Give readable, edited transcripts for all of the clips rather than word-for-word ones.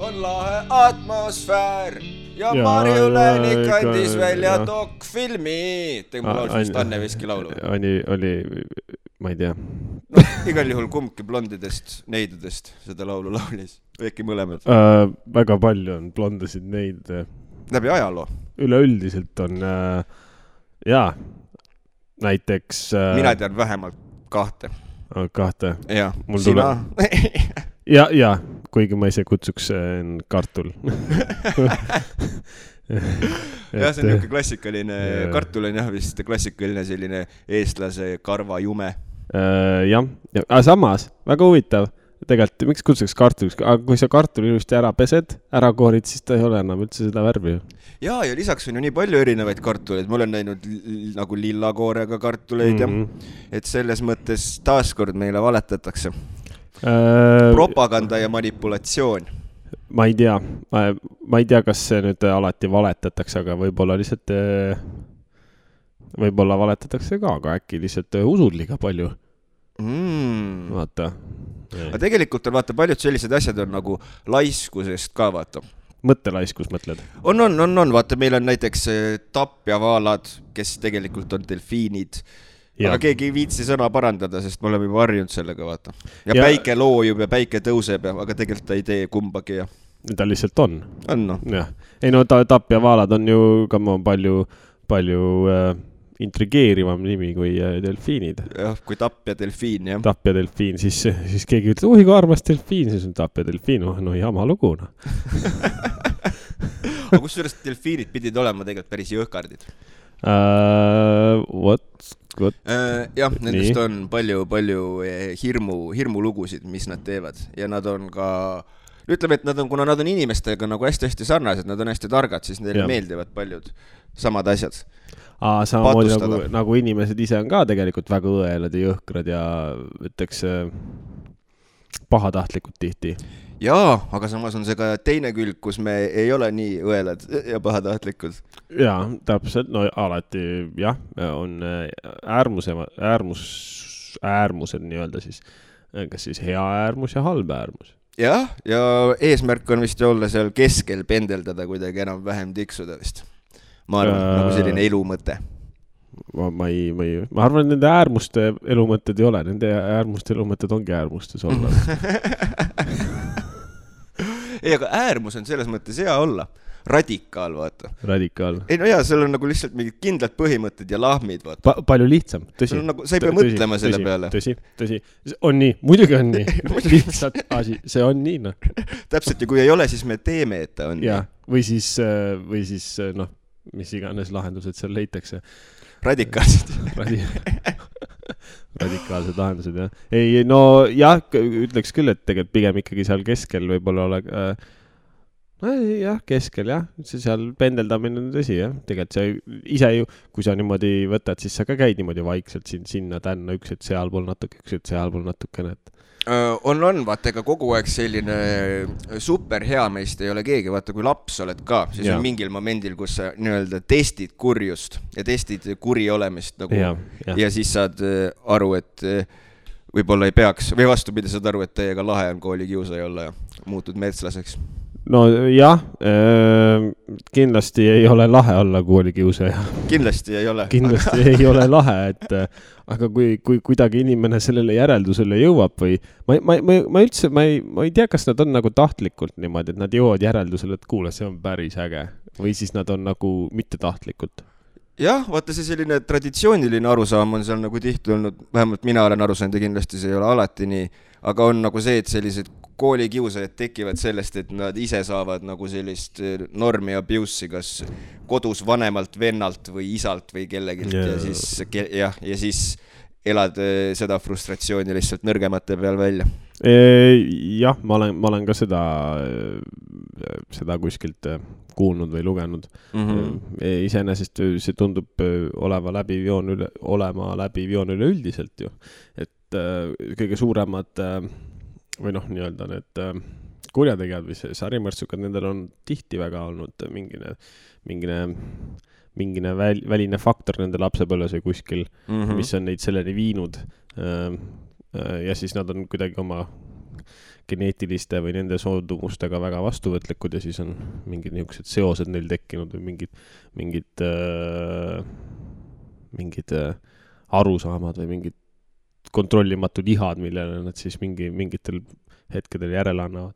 on lahe atmosfäär ja Marju Läänik andis välja dokfilmi. Tegin mul laulus vist Anne Veski laulu. Oli, ma ei tea. No, igal juhul kumbki blondidest, neidudest seda laulu laulis. Või äkki mõlemad? Väga palju on blondasid neid. Läbi ajaloo? Üleüldiselt on, näiteks... Mina tean vähemalt kahte. Kahte? Ja, sina? Ja, kuigi ma ise kutsuks kartul. Ja, see on niuke klassikaline, kartul on jah vist klassikaline selline eestlase karva jume. Jah, aga samas, väga huvitav. Tegelikult, miks kutsuks kartuliks? Aga kui sa kartuli ilusti ära pesed, ära koorid, siis ta ei ole enam üldse seda värvi. Ja lisaks on ju nii palju erinevaid kartuleid. Ma olen näinud nagu lillakoorega kartuleid ja et selles mõttes taaskord meile valetatakse. Propaganda ja manipulatsioon. Ma ei tea, kas see nüüd alati valetatakse, aga võib-olla lihtsalt võib-olla valetatakse ka, aga äkki lihtsalt usud liiga palju. Vaata. Aga tegelikult on vaata paljud sellised asjad on nagu laiskusest ka vaata. Mõttelaiskus mõtled? On. Vaata, meil on näiteks tapjavaalad, kes tegelikult on delfiinid. Ja. Aga keegi ei viitsi sõna parandada, sest me oleme juba harjunud sellega vaata. Ja päike loojub ja päike tõuseb, aga tegelikult ta ei tee kumbagi. Ja. Ta lihtsalt on. On no. Ja. Ei no tapjavaalad on ju ka palju intrigeerivam nimi kui delfiinid. Jah, kui tapja delfiin, jah. Tapja delfiin, siis keegi ütleb, kui armas delfiin, siis on tapja delfiin, no jama lugu. No. Aga kusjuures delfiinid pidid olema tegelikult päris jõhkardid. Jah, nendest on palju hirmu lugusid, mis nad teevad. Ja nad on ka, ütleme, et kuna nad on inimestega nagu hästi sarnased, nad on hästi targad, siis neile meeldivad paljud samad asjad. Samamoodi nagu inimesed ise on ka tegelikult väga õelad ja jõhkrad ja ütleks pahatahtlikud tihti. Jaa, aga samas on see ka teine külg, kus me ei ole nii õelad ja pahatahtlikud. Jaa, täpselt, no alati jah, on äärmused nii-öelda siis, kas siis hea äärmus ja halb äärmus. Jah, ja eesmärk on vist olla seal keskel pendeldada kuidagi enam vähem tiksuda vist. Ma arvan, nagu selline elumõte. Ma arvan, et nende äärmuste elumõtted ei ole. Nende äärmuste elumõtted ongi äärmustes olla. Ei, aga äärmus on selles mõttes hea olla. Radikaal, vaata. Radikaal. Ei, no jaa, seal on nagu lihtsalt mingid kindlad põhimõtted ja lahmid, vaata. Palju lihtsam, tõsi. Nagu, sa ei pea mõtlema selle peale. Tõsi. On nii, muidugi on nii. Lihtsalt asi, see on nii, noh. Täpselt, ja kui ei ole, siis me teeme, et ta on nii. Või siis, noh, mis iganes lahendused seal leitakse. Radikaalsed. Radikaalsed lahendused, jah. Ei, no jah, ütleks küll, et tegelikult pigem ikkagi seal keskel võib-olla ole... jah, keskel, jah. See seal pendeldamine on tõsi, jah. Tegelikult see ise ju, kui sa niimoodi võtad, siis sa ka käid niimoodi vaikselt sinna tänna, üks, et sealpool natuke, üks, et sealpool natukene, et... On, vaata, ega kogu aeg selline super hea meist ei ole keegi, vaata, kui laps oled ka, siis on mingil momendil, kus sa nii-öelda testid kurjust ja testid kuri olemist nagu, ja siis saad aru, et võib-olla ei peaks, või vastupidi, saad aru, et teiega lahe on koolikiusaja olla ja muutud metslaseks. No jah, kindlasti ei ole lahe olla koolikiusaja. Kindlasti ei ole. Kindlasti ei ole lahe, et aga kui kuidagi inimene sellele järeldusele jõuab või ma üldse, ma ei tea, kas nad on nagu tahtlikult niimoodi, et nad jõuavad järeldusele, et kuule, see on päris äge või siis nad on nagu mitte tahtlikult. Jah, vaata see selline traditsiooniline arusaam on seal nagu tihti olnud, vähemalt mina olen aru saanud ja kindlasti see ei ole alati nii, aga on nagu see, et sellised koolikiusajad tekivad sellest, et nad ise saavad nagu sellist normi abuse'i kas kodus vanemalt vennalt või isalt või kellegilt ja siis elad seda frustratsiooni lihtsalt nõrgemate peal välja. Jah, ma olen ka seda kuskilt kuulnud või lugenud. Iseenesest see tundub olema läbi joon üleüldiselt ju. Et kõige suuremad või noh, nii-öelda need kurjategijad või sarimõrtsukad, nendel on tihti väga olnud mingine väline faktor nende lapsepõlves või kuskil, mis on neid selleni viinud. Ja siis nad on kuidagi oma geneetiliste või nende soodumustega väga vastuvõtlikud ja siis on mingid niisugused seosed neil tekkinud või mingid arusaamad või mingid kontrollimatud ihad, millele nad siis mingitel hetkedel järele annavad.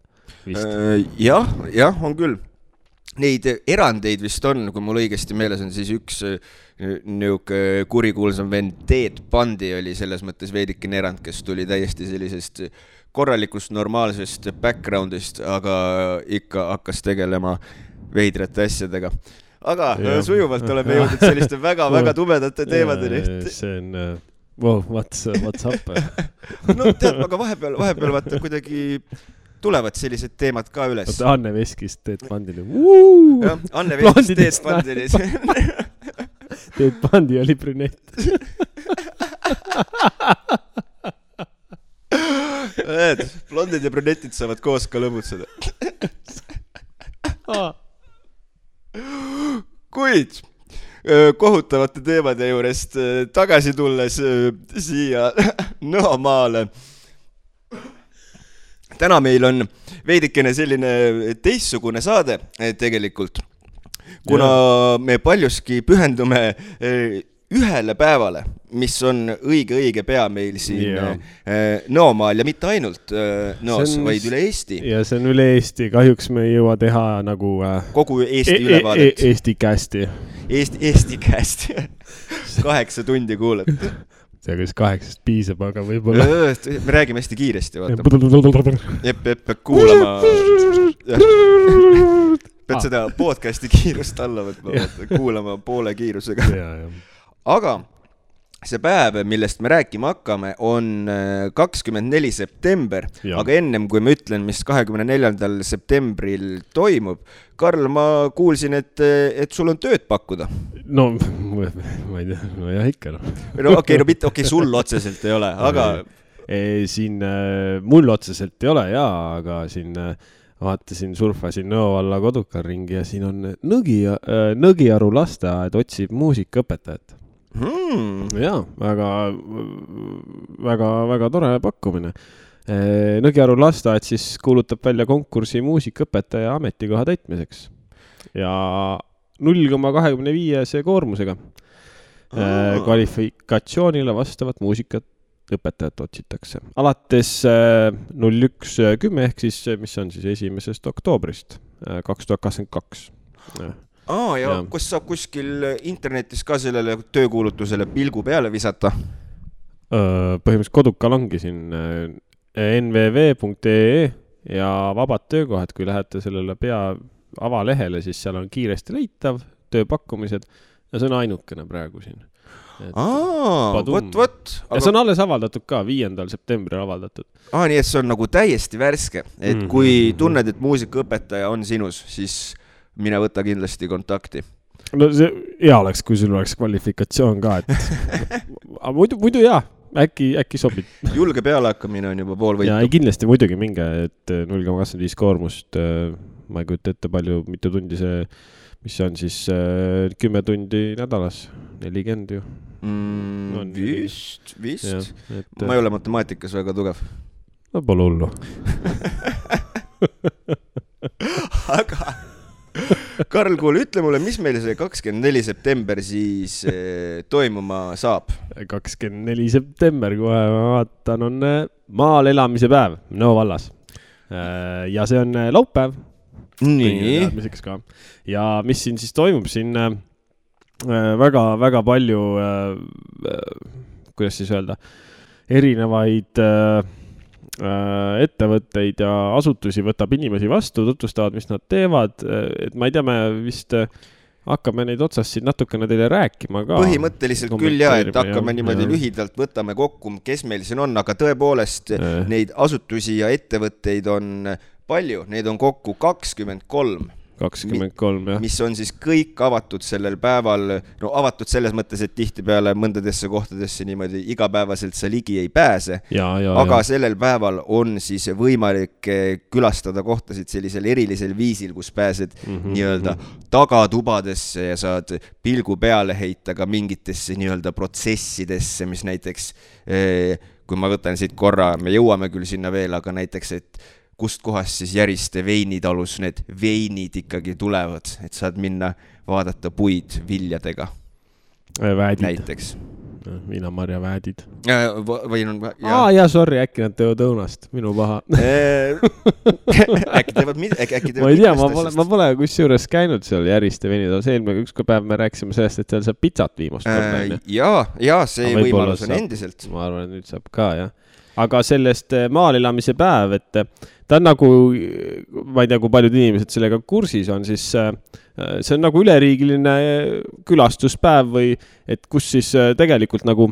Jah, on küll. Neid erandeid vist on, kui mul õigesti meeles on, siis üks niuke kurikuulsam vend Ted Bundy oli selles mõttes veidikene erand, kes tuli täiesti sellisest korralikust normaalsest backgroundist, aga ikka hakkas tegelema veidrate asjadega. Aga sujuvalt oleme jõudnud selliste väga-väga tumedate teemadeni. See on, wow, what's up? No tead, aga vahepeal vaata kuidagi tulevad sellised teemad ka üles. Anne Veskist Ted Bundini. Anne Veskist Ted Bundini. Ted Bundi oli brünett. Blondid ja brünetid saavad koos ka lõbutseda. Kuid kohutavate teemade juurest tagasi tulles siia Nõomaale. Täna meil on veidikene selline teistsugune saade tegelikult, kuna me paljuski pühendume ühele päevale, mis on õige pea meil siin Nõomaal ja mitte ainult Nõos, vaid üle Eesti. Ja see on üle Eesti, kahjuks me ei jõua teha nagu kogu Eesti ülevaadet. Eesti kästi. Eesti kästi. 8 tundi kuuled. See kas 8 piisab, aga võib-olla... Me räägime hästi kiiresti, vaata. Jepp, kuulama. Pead seda podcasti kiirust alla võtma, kuulama poole kiirusega. Aga see päev, millest me rääkima hakkame, on 24. september, aga ennem kui ma ütlen, mis 24. septembril toimub, Karl, ma kuulsin, et sul on tööd pakkuda. No, ma ei tea, no jah, ikka. Okei, sul otseselt ei ole, aga... Siin mul otseselt ei ole, aga siin vaatasin, surfasin Nõovalla Kodukar ringi ja siin on Nõgiaru lasteaed otsib muusikaõpetajat. Jaa, väga tore pakkumine. Nõgiaru lasteaed siis kuulutab välja konkursi muusikaõpetaja ametikoha täitmiseks ja 0,25 koormusega kvalifikatsioonile vastavat muusikaõpetajat otsitakse. Alates 01.10 ehk siis, mis on siis 1. oktoobrist 2022. Ja kus saab kuskil internetis ka sellele töökuulutusele pilgu peale visata? Põhimõtteliselt Kodukal ongi siin nvv.ee ja vabad töökohad, kui lähete sellele avalehele, siis seal on kiiresti leitav tööpakkumised ja see on ainukene praegu siin. Võt. Ja see on alles avaldatud ka, 5. septembril avaldatud. Nii et see on nagu täiesti värske, et kui tunned, et muusikaõpetaja on sinus, siis mine võta kindlasti kontakti. No see hea oleks, kui sul oleks kvalifikatsioon ka, et muidu jaa, äkki sobib. Julge pealehakkamine on juba pool võitu. Ja kindlasti muidugi minge, et 0,25 koormust, ma ei kujuta ette palju, mitu tundi see, mis on siis 10 tundi nädalas, 40 ju. Vist. Ma ei ole matemaatikas väga tugev. No pole hullu. Aga Karl, kuule, ütle mulle, mis meil see 24. september siis toimuma saab? 24. september, kohe ma vaatan, on maal elamise päev Nõo vallas. Ja see on laupäev. Nii. Ja mis siin siis toimub? Siin väga palju, kuidas siis öelda, erinevaid ettevõtteid ja asutusi võtab inimesi vastu, tutvustavad, mis nad teevad, et ma ei tea, me vist hakkame neid otsast siin natukene teile rääkima ka. Põhimõtteliselt küll et hakkame niimoodi lühidalt, võtame kokku, kes meil siin on, aga tõepoolest neid asutusi ja ettevõtteid on palju, neid on kokku 23. 23, jah. Mis on siis kõik avatud sellel päeval, no avatud selles mõttes, et tihtipeale mõndadesse kohtadesse niimoodi igapäevaselt sa ligi ei pääse, aga sellel päeval on siis võimalik külastada kohtasid sellisel erilisel viisil, kus pääsed nii-öelda tagatubadesse ja saad pilgu peale heita ka mingitesse nii-öelda protsessidesse, mis näiteks, kui ma võtan siit korra, me jõuame küll sinna veel, aga näiteks, et kust kohast siis Järiste veinitalus need veinid ikkagi tulevad, et saad minna vaadata puid viljadega. Väädid. Näiteks. Viinamarja väädid. Või on... Jaa, sorry, äkki nad teevad õunast. Minu paha. Äkki teevad ma ei tea, ma pole kusjuures käinud seal Järiste veinitalus. Eelmine ükskord päev me rääkisime sellest, et seal saab pizzat viimast. Jaa, see võimalus on endiselt. Ma arvan, et nüüd saab ka, jah. Aga sellest maal elamise päev, et ta on nagu, ma ei tea, kui paljud inimesed sellega kursis on, siis see on nagu üleriigiline külastuspäev või et kus siis tegelikult nagu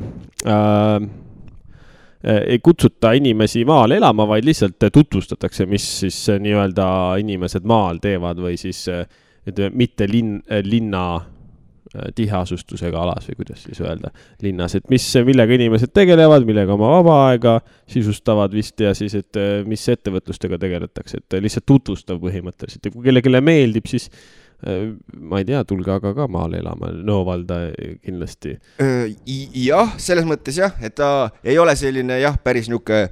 ei kutsuta inimesi maal elama, vaid lihtsalt tutvustatakse, mis siis nii-öelda inimesed maal teevad või siis mitte linna tiheasustusega alas või kuidas siis öelda linnas, et millega inimesed tegelevad, millega oma vaba aega sisustavad vist ja siis, et mis ettevõtlustega tegeletakse, et lihtsalt tutvustav põhimõtteliselt ja kui kellelegi meeldib, siis ma ei tea, tulge aga ka maale elama, Nõovalda kindlasti. Jah, selles mõttes jah, et ta ei ole selline jah, päris niuke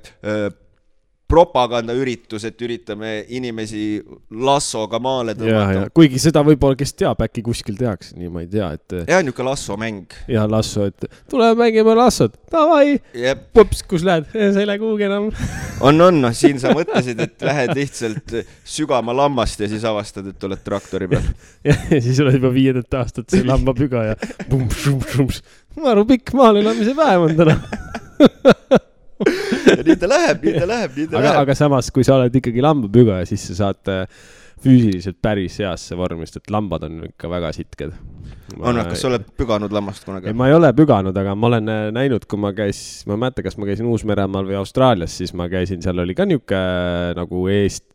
propagandaüritus, et üritame inimesi lassoga maale tõmmata. Kuigi seda võib-olla, kes teab, äkki kuskil tehakse, nii ma ei tea, et... Ja, niuke lassomäng. Ja, lasso, et tule mängime lassod. Tavai, pups, kus lähed? Sa ei lähe kuhugi enam. On, siin sa mõtlesid, et lähed lihtsalt sügama lammast ja siis avastad, et oled traktori peal. Ja siis oled juba 5. aastat see lambapüga ja maru pikk maal elamise päev on täna. Ja nii ta läheb. Aga samas, kui sa oled ikkagi lambapüga ja siis sa saad füüsiliselt päris heasse vormist, et lambad on ikka väga sitked. Kas sa oled püganud lammast kunagi? Ma ei ole püganud, aga ma olen näinud, kui ma mäletan, kas ma käisin Uus-Meremaal või Austraalias, siis ma käisin, seal oli ka niuke nagu Eestis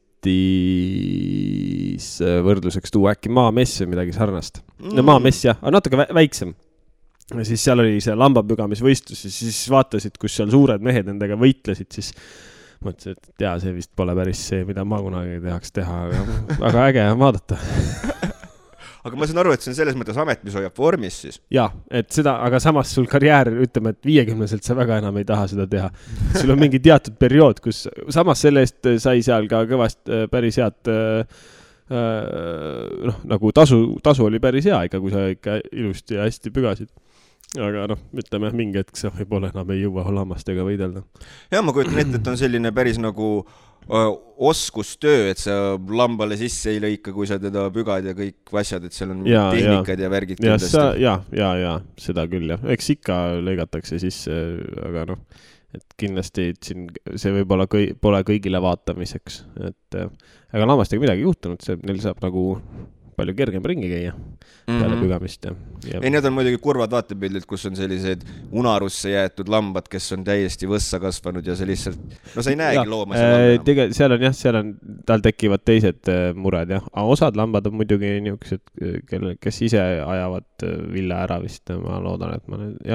võrdluseks tuua äkki maamess või midagi sarnast. No maamess jah, aga natuke väiksem. Ja siis seal oli see lambapügamisvõistlus ja siis vaatasid, kus seal suured mehed nendega võitlesid, siis mõtlesin, et jaa, see vist pole päris see, mida ma kunagi tehaks teha, aga äge on vaadata. Aga ma saan aru, et see on selles mõttes amet, mis hoiab vormis siis. Jaa, et seda, aga samas sul karjäär, ütleme, et 50-selt sa väga enam ei taha seda teha. Sul on mingi teatud periood, kus samas selle eest sai seal ka kõvast päris head nagu tasu oli päris hea ikka, kui sa ikka ilusti ja hästi pügasid. Aga ütleme, mingi hetk sa võib-olla enam ei jõua lammastega võidelda. Ja ma kujutan ette, et on selline päris nagu oskustöö, et sa lambale sisse ei lõika, kui sa teda pügad ja kõik asjad, et seal on tehnikad ja värgid kindlasti. Ja, seda küll, jah. Eks ikka lõigatakse sisse, aga et kindlasti siin see võib-olla pole kõigile vaatamiseks. Aga lammastega midagi juhtunud, neil saab nagu palju kergem ringi käia peale pügamist. Ei, need on muidugi kurvad vaatepildid, kus on sellised unarusse jäetud lambad, kes on täiesti võssa kasvanud ja see lihtsalt, sa ei näegi looma seal on, tal tekivad teised mured, jah. Aga osad lambad on muidugi niisugused, kes ise ajavad villa ära vist, ma loodan, et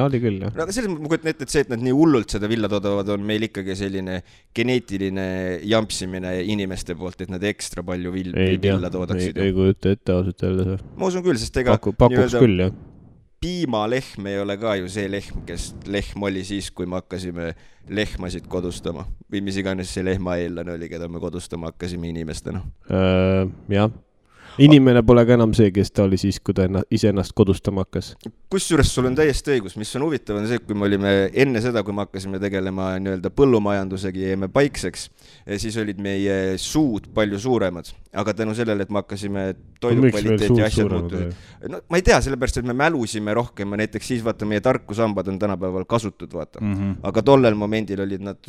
oli küll, jah. Aga selles mõttes ma kujutan ette, et see, et nad nii hullult seda villa toodavad, on meil ikkagi selline geneetiline jampsimine inimeste poolt, et nad ekstra palju villa toodaksid. Ei kujuta ette ausalt öelda. Ma usun küll, sest ega pakuks küll, jah. Piimalehm ei ole ka ju see lehm, kes lehm oli siis, kui me hakkasime lehmasid kodustama. Või mis iganes see lehma eellane oli, keda me kodustama hakkasime inimestena. Jah. Inimene pole ka enam see, kes ta oli siis, kui ta ise ennast kodustama hakkas. Kusjuures sul on täiesti õigus, mis on huvitav on see, kui me olime enne seda, kui me hakkasime tegelema nii-öelda põllumajandusega ja jäime paikseks, siis olid meie suud palju suuremad. Aga tänu sellele, et me hakkasime toidukvaliteet ja asjad muutusid. Ma ei tea, sellepärast, et me mälusime rohkem ja näiteks siis vaata, meie tarkusambad on tänapäeval kasutud, vaata. Aga tollel momendil olid nad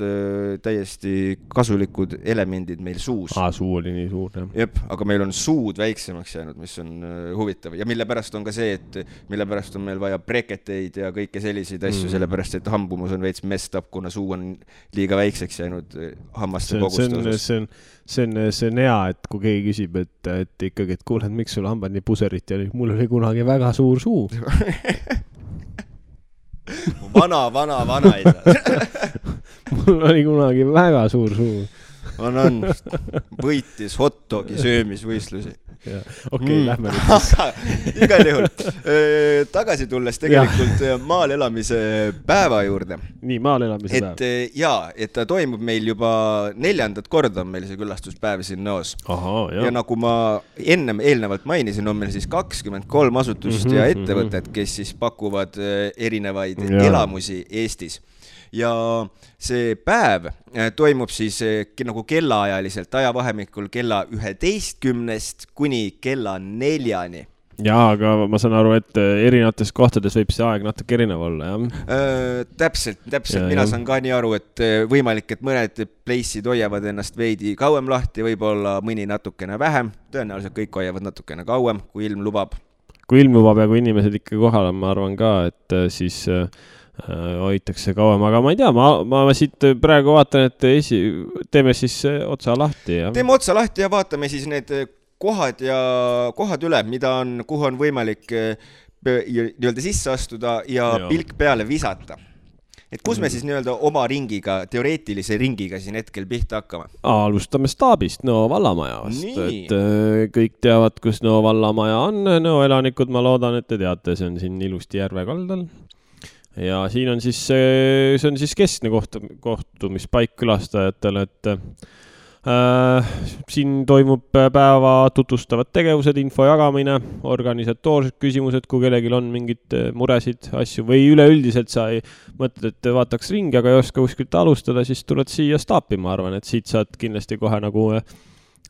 täiesti kasulikud elemendid meil suus. Suu oli nii suur, jah. Jep, aga meil on suud väiksemaks jäänud, mis on huvitav. Ja mille pärast on ka see, et mille pärast on meil vaja breketeid ja kõike selliseid asju, sellepärast, et hambumus on veits messed up, kuna suu on liiga väikseks jäänud hammaste koguste osas. See on hea, et kui keegi küsib, et ikkagi, et kuuled, miks sul hambad nii puserit ja mul oli kunagi väga suur suu. Vana isa. Mul oli kunagi väga suur suu. On. Võitis hot dogi söömisvõistlusi. Okei, lähme nüüd siis. Igal juhul. Tagasi tulles tegelikult maal elamise päeva juurde. Nii, maal elamise päev. Et ta toimub meil juba 4. korda on meil see külastuspäev siin Nõos. Ja nagu ma eelnevalt mainisin, on meil siis 23 asutust ja ettevõtted, kes siis pakuvad erinevaid elamusi Eestis. Ja see päev toimub siis nagu kellaajaliselt ajavahemikul kella 11 kuni kella 4. Jaa, aga ma saan aru, et erinevates kohtades võib see aeg natuke erinev olla, jah? Täpselt. Mina saan ka nii aru, et võimalik, et mõned pleissid hoiavad ennast veidi kauem lahti, võib-olla mõni natukene vähem. Tõenäoliselt kõik hoiavad natukene kauem, kui ilm lubab. Kui ilm lubab ja kui inimesed ikka kohal on, ma arvan ka, et siis hoitakse kauem, aga ma ei tea, ma siit praegu vaatan, et teeme siis otsa lahti. Ja? Teeme otsa lahti ja vaatame siis need kohad üle, kuhu on võimalik nii-öelda sisse astuda ja pilk peale visata. Et kus me siis nii-öelda oma ringiga, teoreetilise ringiga siin hetkel pihta hakkame? Alustame staabist Nõo vallamaja vast, et kõik teavad, kus Nõo vallamaja on. Nõo elanikud, ma loodan, et te teate, see on siin ilusti järve kaldal. Ja siin on siis, see on siis keskne kohtumispaik külastajatele, et siin toimub päeva tutvustavad tegevused, info jagamine, organisatoorsed küsimused, kui kellelgi on mingid muresid, asju või üleüldiselt sa ei mõtled, et vaataks ringi, aga ei oska kuskilt alustada, siis tuled siia staapi, ma arvan, et siit saad kindlasti kohe nagu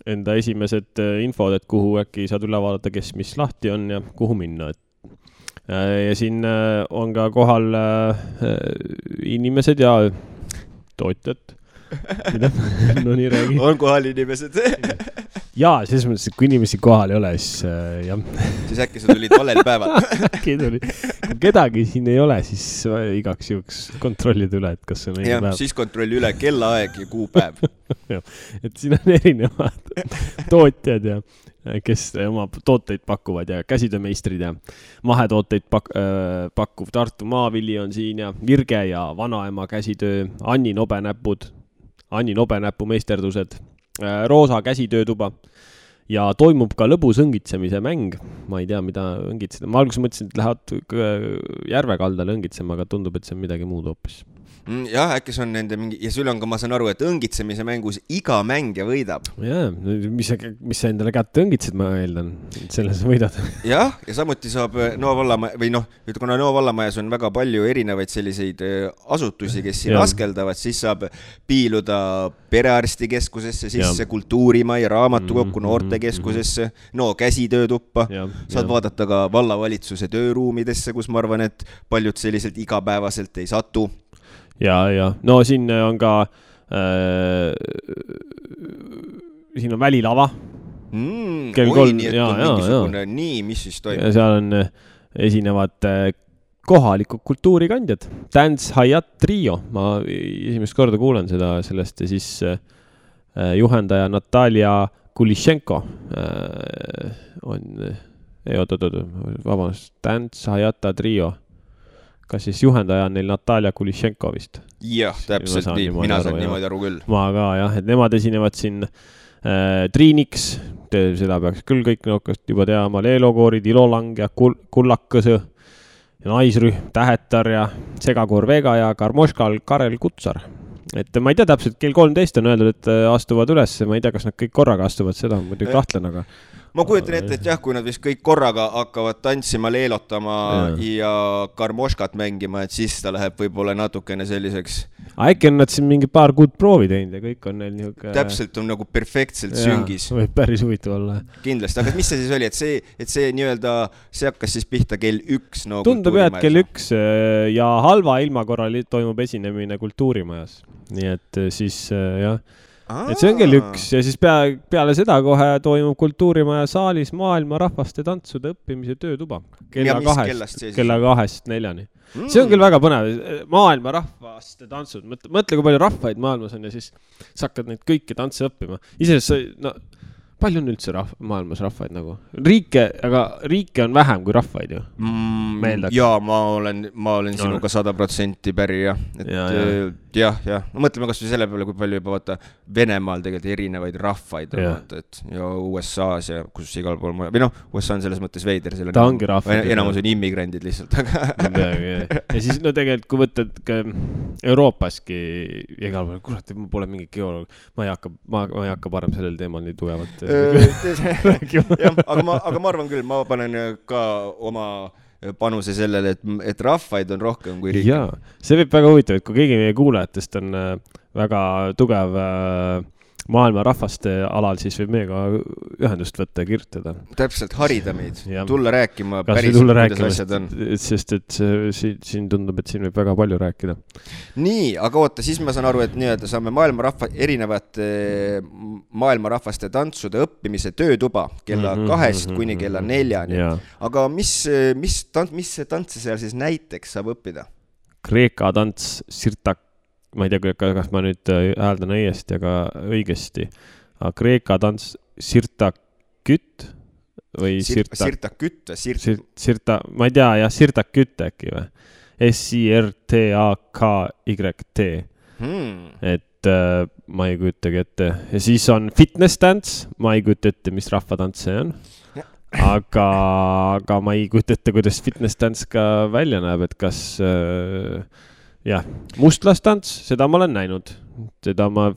enda esimesed infod, et kuhu äkki saad üle vaadata, kes mis lahti on ja kuhu minna, ja siin on ka kohal inimesed ja tootjad. No nii räägi. On kohal inimesed. Jaa, selles mõttes, et kui inimesi kohal ei ole, siis jah. Siis äkki sa tulid valel päeval. Kui kedagi siin ei ole, siis igaks juhuks kontrollid üle, et kas on õige päev. Siis kontrolli üle kellaaeg ja kuupäev. Et siin on erinevad tootjad ja kes oma tooteid pakuvad ja käsitöömeistrid ja mahetooteid pakkuv Tartu Maavili on siin ja Virge ja vanaema käsitöö, Anni Nobenäpu meisterdused, Roosa käsitöötuba ja toimub ka lõbus õngitsemise mäng. Ma ei tea, mida õngitseda. Ma alguses mõtlesin, et lähevad järve kaldale õngitsema, aga tundub, et see on midagi muud hoopis. Jah, äkki see on nende mingi, ja sul on ka, ma saan aru, et õngitsemise mängus iga mängija võidab. Jaa, mis sa endale kätte õngitsed, ma eeldan, selles võidad. Jah, ja samuti saab Nõo vallamaja, või kuna Nõo vallamajas on väga palju erinevaid selliseid asutusi, kes siin askeldavad, siis saab piiluda perearstikeskusesse, sisse kultuurimai, raamatukokku, noortekeskusesse, Nõo käsitöötuppa. Saad vaadata ka vallavalitsuse tööruumidesse, kus ma arvan, et paljud selliselt igapäevaselt ei satu. Ja. No siin on ka siin on välilava. Kell 3. Nii, et on mingisugune nii, mis siis toimub? Ja seal on esinevad kohalikud kultuurikandjad. Dance Hayat Trio. Ma esimest korda kuulen sellest ja siis juhendaja Natalia Kulishenko on vabandust, Dance Hayata Trio. Kas siis juhendaja on neil Natalia Kulishenko vist? Jah, täpselt nii. Mina saan niimoodi aru küll. Ma ka, jah, et nemad esinevad siin Triiniks, seda peaks küll kõik nõukast juba teama, Leelokoorid, Ilolang ja Kullakõsõ, Naisrühm, Tähetar ja Segakoor Vega ja Karmoškal Karel Kutsar. Et ma ei tea täpselt, kell 13 on öeldud, et astuvad üles, ma ei tea, kas nad kõik korraga astuvad, seda on muidugi kahtlen, aga ma kujutan ette, et jah, kui nad vist kõik korraga hakkavad tantsima, leelotama ja karmoškat mängima, et siis ta läheb võib-olla natukene selliseks. Äkki on nad siin mingi paar kuud proovi teinud ja kõik on neil niisugune täpselt on nagu perfektselt süngis. Võib päris huvitav olla. Kindlasti, aga mis see siis oli, et see nii-öelda, see hakkas siis pihta kell 1 no tundub jah, et kell 1 ja halva ilma korral toimub esinemine kultuurimajas. Nii et siis jah, et see on kell 1 ja siis peale seda kohe toimub kultuurimaja saalis maailma rahvaste tantsude õppimise töötuba. Kella 2-4. See on küll väga põnev. Maailma rahvaste tantsud. Mõtle, kui palju rahvaid maailmas on ja siis sa hakkad neid kõiki tantse õppima. Iseenesest palju on üldse maailmas rahvaid nagu? Riike on vähem kui rahvaid ju. Jaa, ma olen sinuga 100% päri, jah. Jah. No mõtleme kas või selle peale, kui palju juba vaata Venemaal tegelikult erinevaid rahvaid on, et ja USA-s ja kus igal pool või noh, USA on selles mõttes veider. Ta ongi rahvaid. Enamus on immigrandid lihtsalt, aga... Ja siis no tegelikult, kui võtad ka Euroopaski igal pool, kurat, ma pole mingi geoloog, ma ei hakka parem sellel teemal nii tugevalt aga ma arvan küll, ma panen ka oma panuse sellele, et rahvaid on rohkem kui riike. Jaa, see võib väga huvitav, et kui keegi meie kuulajatest on väga tugev maailma rahvaste alal, siis võib meiega ühendust võtta ja kirjutada. Täpselt, harida meid. Tulla rääkima päris, kuidas asjad on. Sest et siin tundub, et siin võib väga palju rääkida. Nii, aga oota, siis ma saan aru, et nii-öelda saame erinevate maailmarahvaste tantsude õppimise töötuba kella 2 kuni kella 4. Aga mis see tantse seal siis näiteks saab õppida? Kreeka tants Sirtak. Ma ei tea, kas ma nüüd hääldan õigesti, aga Kreeka tants Sirtakütt või Sirtakütt ma ei tea, jah, Sirtakütt äkki või? S-I-R-T-A-K-Y-T. Et ma ei kujutagi ette. Ja siis on fitness dance, ma ei kujuta ette, mis rahvatants see on. Aga ma ei kujuta ette, kuidas fitness dance ka välja näeb, et kas... Jah, mustlastants, seda ma olen näinud.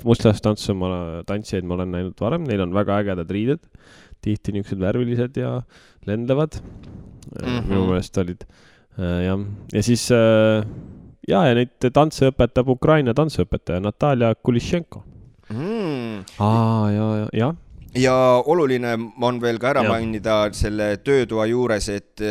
Mustlastantsu tantsijaid ma olen näinud varem. Neil on väga ägedad riided. Tihti niisugused värvilised ja lendavad. Minu meelest olid. Ja siis ja neid tantse õpetab Ukraina tantseõpetaja Natalia Kulishenko. Ja. Ja oluline on veel ka ära mainida selle töötoa juures, et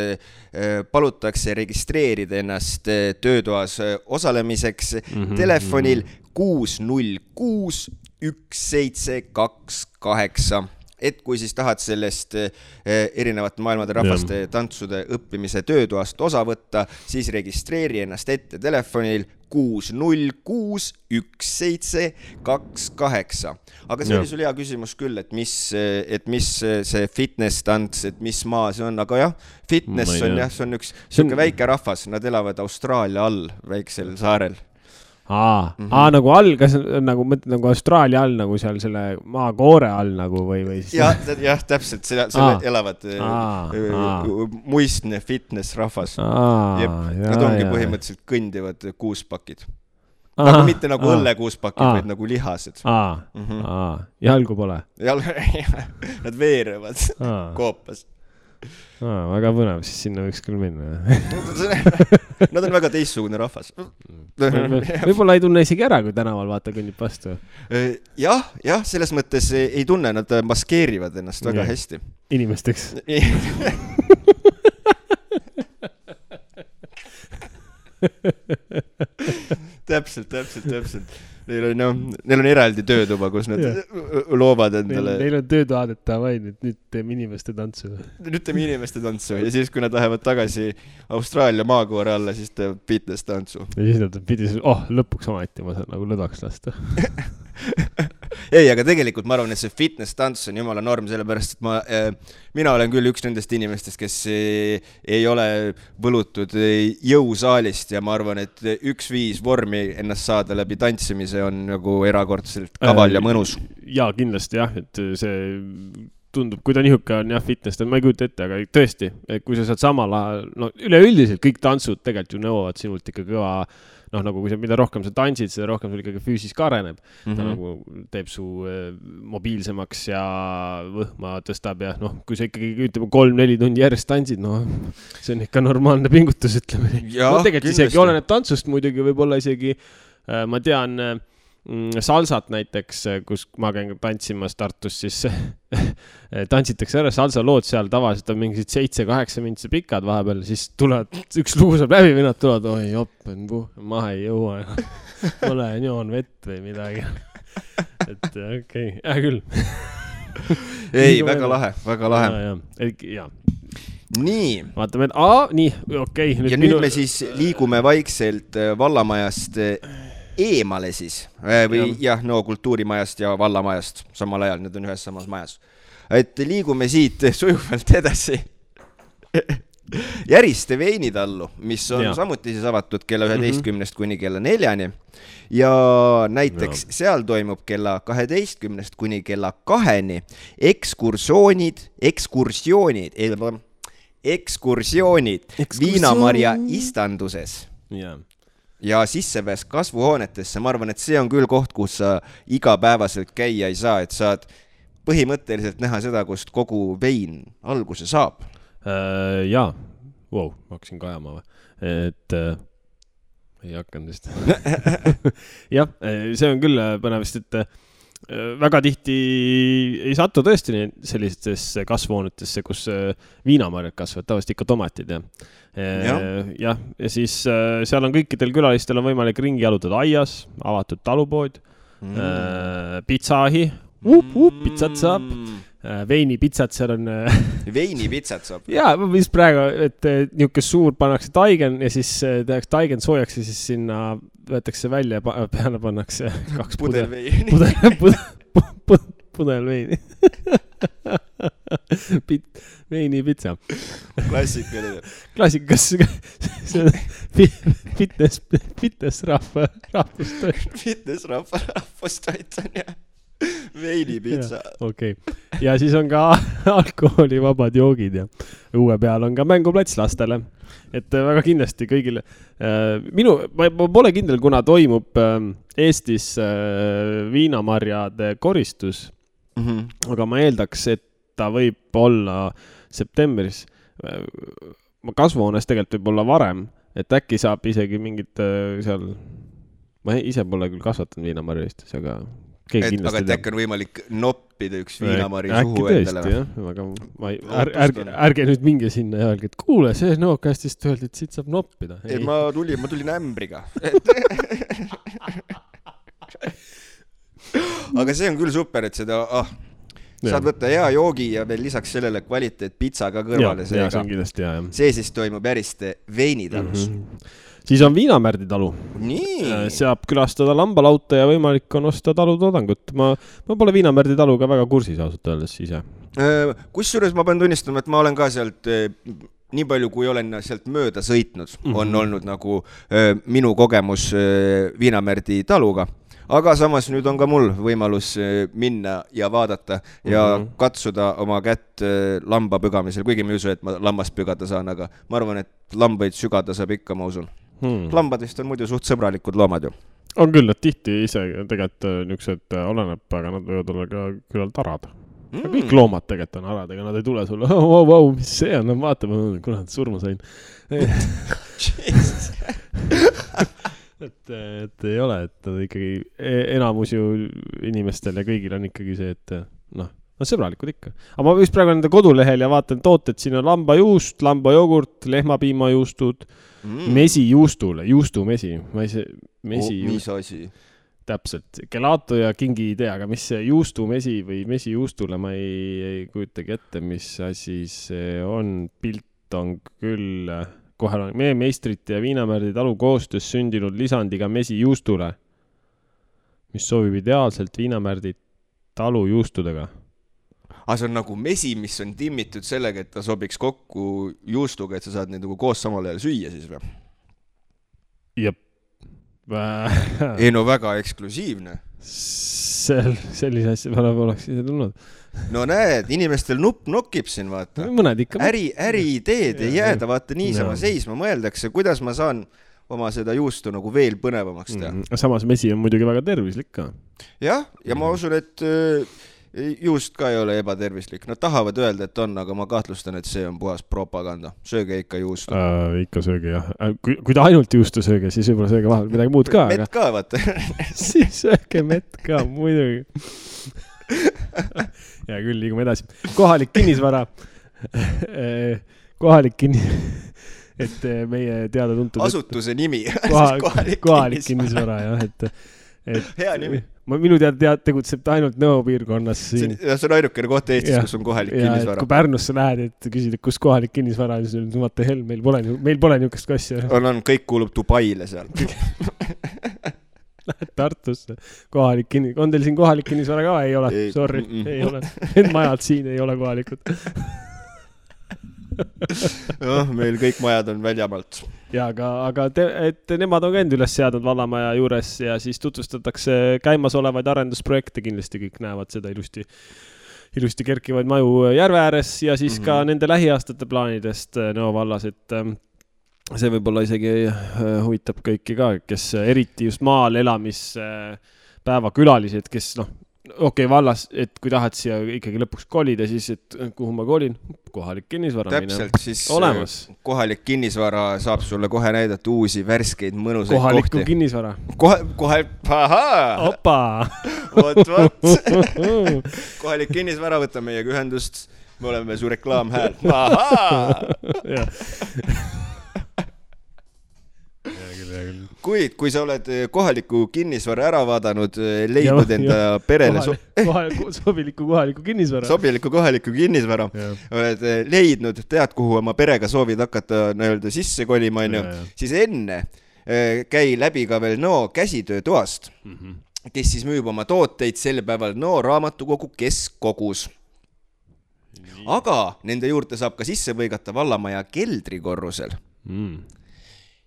palutakse registreerida ennast töötoas osalemiseks telefonil 606 1728. Et kui siis tahad sellest erinevate maailmade rahvaste tantsude õppimise töötoast osa võtta, siis registreeri ennast ette telefonil 606 1728. Aga see oli sul hea küsimus küll, et mis see fitness tants, et mis maa see on, aga jah, fitness on jah, see on üks väike rahvas, nad elavad Austraalia all, väiksel saarel. Nagu all, kas nagu mõtled nagu Austraalia all, nagu seal selle maakoore all nagu või siis... Jah, täpselt, selle elavad muistne fitness rahvas. Nad ongi põhimõtteliselt kõndivad kuuspakid. Aga mitte nagu õllekuuspakid, vaid nagu lihased. Jalgu pole? Nad veerevad koopas. Väga põnev, siis sinna võiks küll minna. Nad on väga teistsugune rahvas. Võib-olla ei tunne isegi ära, kui tänaval vaata kõnnib vastu. Jah, selles mõttes ei tunne, nad maskeerivad ennast väga hästi. Inimesteks. Täpselt. Neil on eraldi töötuba, kus nad loovad endale. Neil on töötuadeta vaid, et nüüd teeme inimeste tantsu. Ja siis, kui nad lähevad tagasi Austraalia maakoore alla, siis teeb fitness tantsu. Ja siis nad pidi, lõpuks ometi ma saan nagu lõdaks lasta. Ei, aga tegelikult ma arvan, et see fitness tants on jumala norm, sellepärast, et mina olen küll üks nendest inimestest, kes ei ole võlutud jõusaalist ja ma arvan, et 1-5 vormi ennast saada läbi tantsimise on nagu erakordselt kaval ja mõnus. Jaa, kindlasti jah, et see tundub, kui ta nihuke on jah, fitness, ma ei kujuta ette, aga tõesti, kui sa saad samal ajal, üleüldiselt kõik tantsud tegelikult ju nõuavad sinult ikka kõva, nagu kui mida rohkem sa tantsid, seda rohkem sul ikkagi füüsis ka areneb. Ta nagu teeb su mobiilsemaks ja võhma tõstab ja kui sa ikkagi ütleme 3-4 tundi järjest tantsid, see on ikka normaalne pingutus, ütleme. Tegelikult isegi oleneb tantsust muidugi, võib-olla isegi, ma tean, salsat näiteks, kus ma käin tantsimas Tartus, siis tantsitakse ära salsa lood seal tavaliselt on mingid 7-8 mintse pikad vahepeal, siis tulevad, üks lugu saab läbi või nad tulevad, oi joppen, maha ei jõua, ole joon vett või midagi. Et okei, küll. Ei, väga lahe. Ja. Nii. Vaatame, et nii, okei. Ja nüüd me siis liigume vaikselt vallamajast eemale siis, või kultuurimajast ja vallamajast samal ajal, need on ühes samas majas. et liigume siit sujuvalt edasi Järiste veinitallu, mis on samuti siis avatud kella 11 kuni kella 4 ja näiteks seal toimub kella 12 kuni kella 2 ekskursioonid Viinamarja istanduses ja sissepääs kasvuhoonetesse. Ma arvan, et see on küll koht, kus sa igapäevaselt käia ei saa, et saad põhimõtteliselt näha seda, kust kogu vein alguse saab. Jaa, ma hakkasin kajama või, et ei hakanud vist. Jah, see on küll põnevist, et väga tihti ei satu tõesti sellistesse kasvuhoonetesse, kus viinamarjad kasvavad, tavaliselt ikka tomatid ja siis seal on kõikidel külalistel on võimalik ringi jalutada aias, avatud talupood, pitsaahi, pitsat saab, veinipitsat seal on. Veinipitsat saab? Jaa, mis praegu, et niisugune suur pannakse taigen ja siis tehakse taigen soojaks ja siis sinna võetakse välja ja peale pannakse 2 pudel veini. Veinipitsa. Klassikas. Fitness rahvustoit. Fitness rahvustoit on jah. Veinipitsa. Okei. Ja siis on ka alkoholivabad joogid ja uue peal on ka mänguplats lastele. Et väga kindlasti kõigile. Ma pole kindel, kuna toimub Eestis viinamarjade koristus, aga ma eeldaks, et ta võib olla septembris. Kasvuhoones tegelikult võib olla varem, et äkki saab isegi mingid seal, ma ise pole küll kasvatanud viinamarja Eestis, aga aga äkki on võimalik noppida üks viinamari suhu endale. Aga ärge nüüd minge sinna ja öelge, et kuule, see Nookastist öeldi, et siit saab noppida. Ma tulin ämbriga. Aga see on küll super, et seda saad võtta hea joogi ja veel lisaks sellele kvaliteet pitsa ka kõrvale. See siis toimub Järiste veinitalus. Siis on Viinamärdi talu. Saab külastada lambalauta ja võimalik on osta talutoodangut. Ma pole Viinamärdi taluga väga kursis ausalt öeldes ise. Kusjuures ma pean tunnistama, et ma olen ka sealt nii palju, kui olen sealt mööda sõitnud, on olnud nagu minu kogemus Viinamärdi taluga. Aga samas nüüd on ka mul võimalus minna ja vaadata ja katsuda oma kätt lamba pügamisel, kuigi ma ei usu, et ma lammast pügada saan, aga ma arvan, et lambaid sügada saab ikka, ma usun. Lambadest on muidu suht sõbralikud loomad ju. On küll, et tihti ise tegelikult niisugused oleneb, aga nad võivad olla ka küllalt arad. Kõik loomad tegelikult on arad, ega nad ei tule sulle, mis see on, vaata, kuna nad surma sain. Et ei ole, et nad ikkagi enamus ju inimestel ja kõigil on ikkagi see, et on sõbralikud ikka. Aga ma vist praegu nende kodulehel ja vaatan tooted, siin on lambajuust, lambajogurt, lehmapiimajuustud, mesijuustule, juustumesi. Mis asi? Täpselt, gelato ja kingi ei tea, aga mis see juustumesi või mesijuustule ma ei kujutagi ette, mis asi see on, pilt on küll kohe on meie meistrite ja Viinamärdi talu koostöös sündinud lisandiga mesijuustule, mis sobib ideaalselt Viinamärdi talu juustudega. See on nagu mesi, mis on timmitud sellega, et ta sobiks kokku juustuga, et sa saad neid nagu koos samal ajal süüa siis või? Jep. Ei no väga eksklusiivne. Sellise asja peale oleks ise tulnud. No näed, inimestel nupp nokib siin, vaata. Mõned ikka. Äriideed ei jääda, vaata niisama seisma. Mõeldakse, kuidas ma saan oma seda juustu nagu veel põnevamaks teha. Samas mesi on muidugi väga tervislik ka. Jah, ja ma usun, et juust ka ei ole ebatervislik. Nad tahavad öelda, et on, aga ma kahtlustan, et see on puhas propaganda. Sööge ikka juustu. Ikka sööge, jah. Kui ta ainult juustu sööge, siis võib-olla sööge vahel midagi muud ka. Mett ka, vaata. Siis sööge mett ka, muidugi. Ja küll, liigume edasi. Kohalik kinnisvara. Et meie teada tuntud... Asutuse nimi. Kohalik kinnisvara, jah. Hea nimi. Minu teada tegutseb ta ainult Nõo piirkonnas siin. See on ainukene koht Eestis, kus on kohalik kinnisvara. Kui Pärnusse lähed, et küsid, kus kohalik kinnisvara, siis on vaata hell, meil pole niisugust kassi. On, kõik kuulub Dubaile seal. Tartusse. On teil siin kohalik kinnisvara ka? Ei ole, sorry, ei ole. Need majad siin ei ole kohalikud. Meil kõik majad on väljamaalt. Ja, aga et nemad on ka end üles seadnud vallamaja juures ja siis tutvustatakse käimasolevaid arendusprojekte, kindlasti kõik näevad seda ilusti kerkivaid maju järve ääres ja siis ka nende lähiaastate plaanidest Nõo vallas, et see võib-olla isegi huvitab kõiki ka, kes eriti just maal elamispäeva külalised, kes vallas, et kui tahad siia ikkagi lõpuks kolida, siis et kuhu ma kolin, kohalik kinnisvara. Täpselt, siis olemas. Kohalik kinnisvara saab sulle kohe näidata uusi värskeid mõnusaid kohaliku kohti. Kinnisvara. Ahaa! Opa! Vot. Kohalik kinnisvara võtta meiega ühendust. Me oleme su reklaamhääl. Ahaa! Kuid, kui sa oled kohaliku kinnisvara ära vaadanud, leidnud enda perele sobiliku kohaliku kinnisvara, oled leidnud, tead, kuhu oma perega soovid hakata sisse kolima, siis enne käi läbi ka veel Nõo käsitöötoast, kes siis müüb oma tooteid sel päeval Nõo raamatukogu keskkogus. Aga nende juurde saab ka sisse võigata vallamaja keldrikorrusel.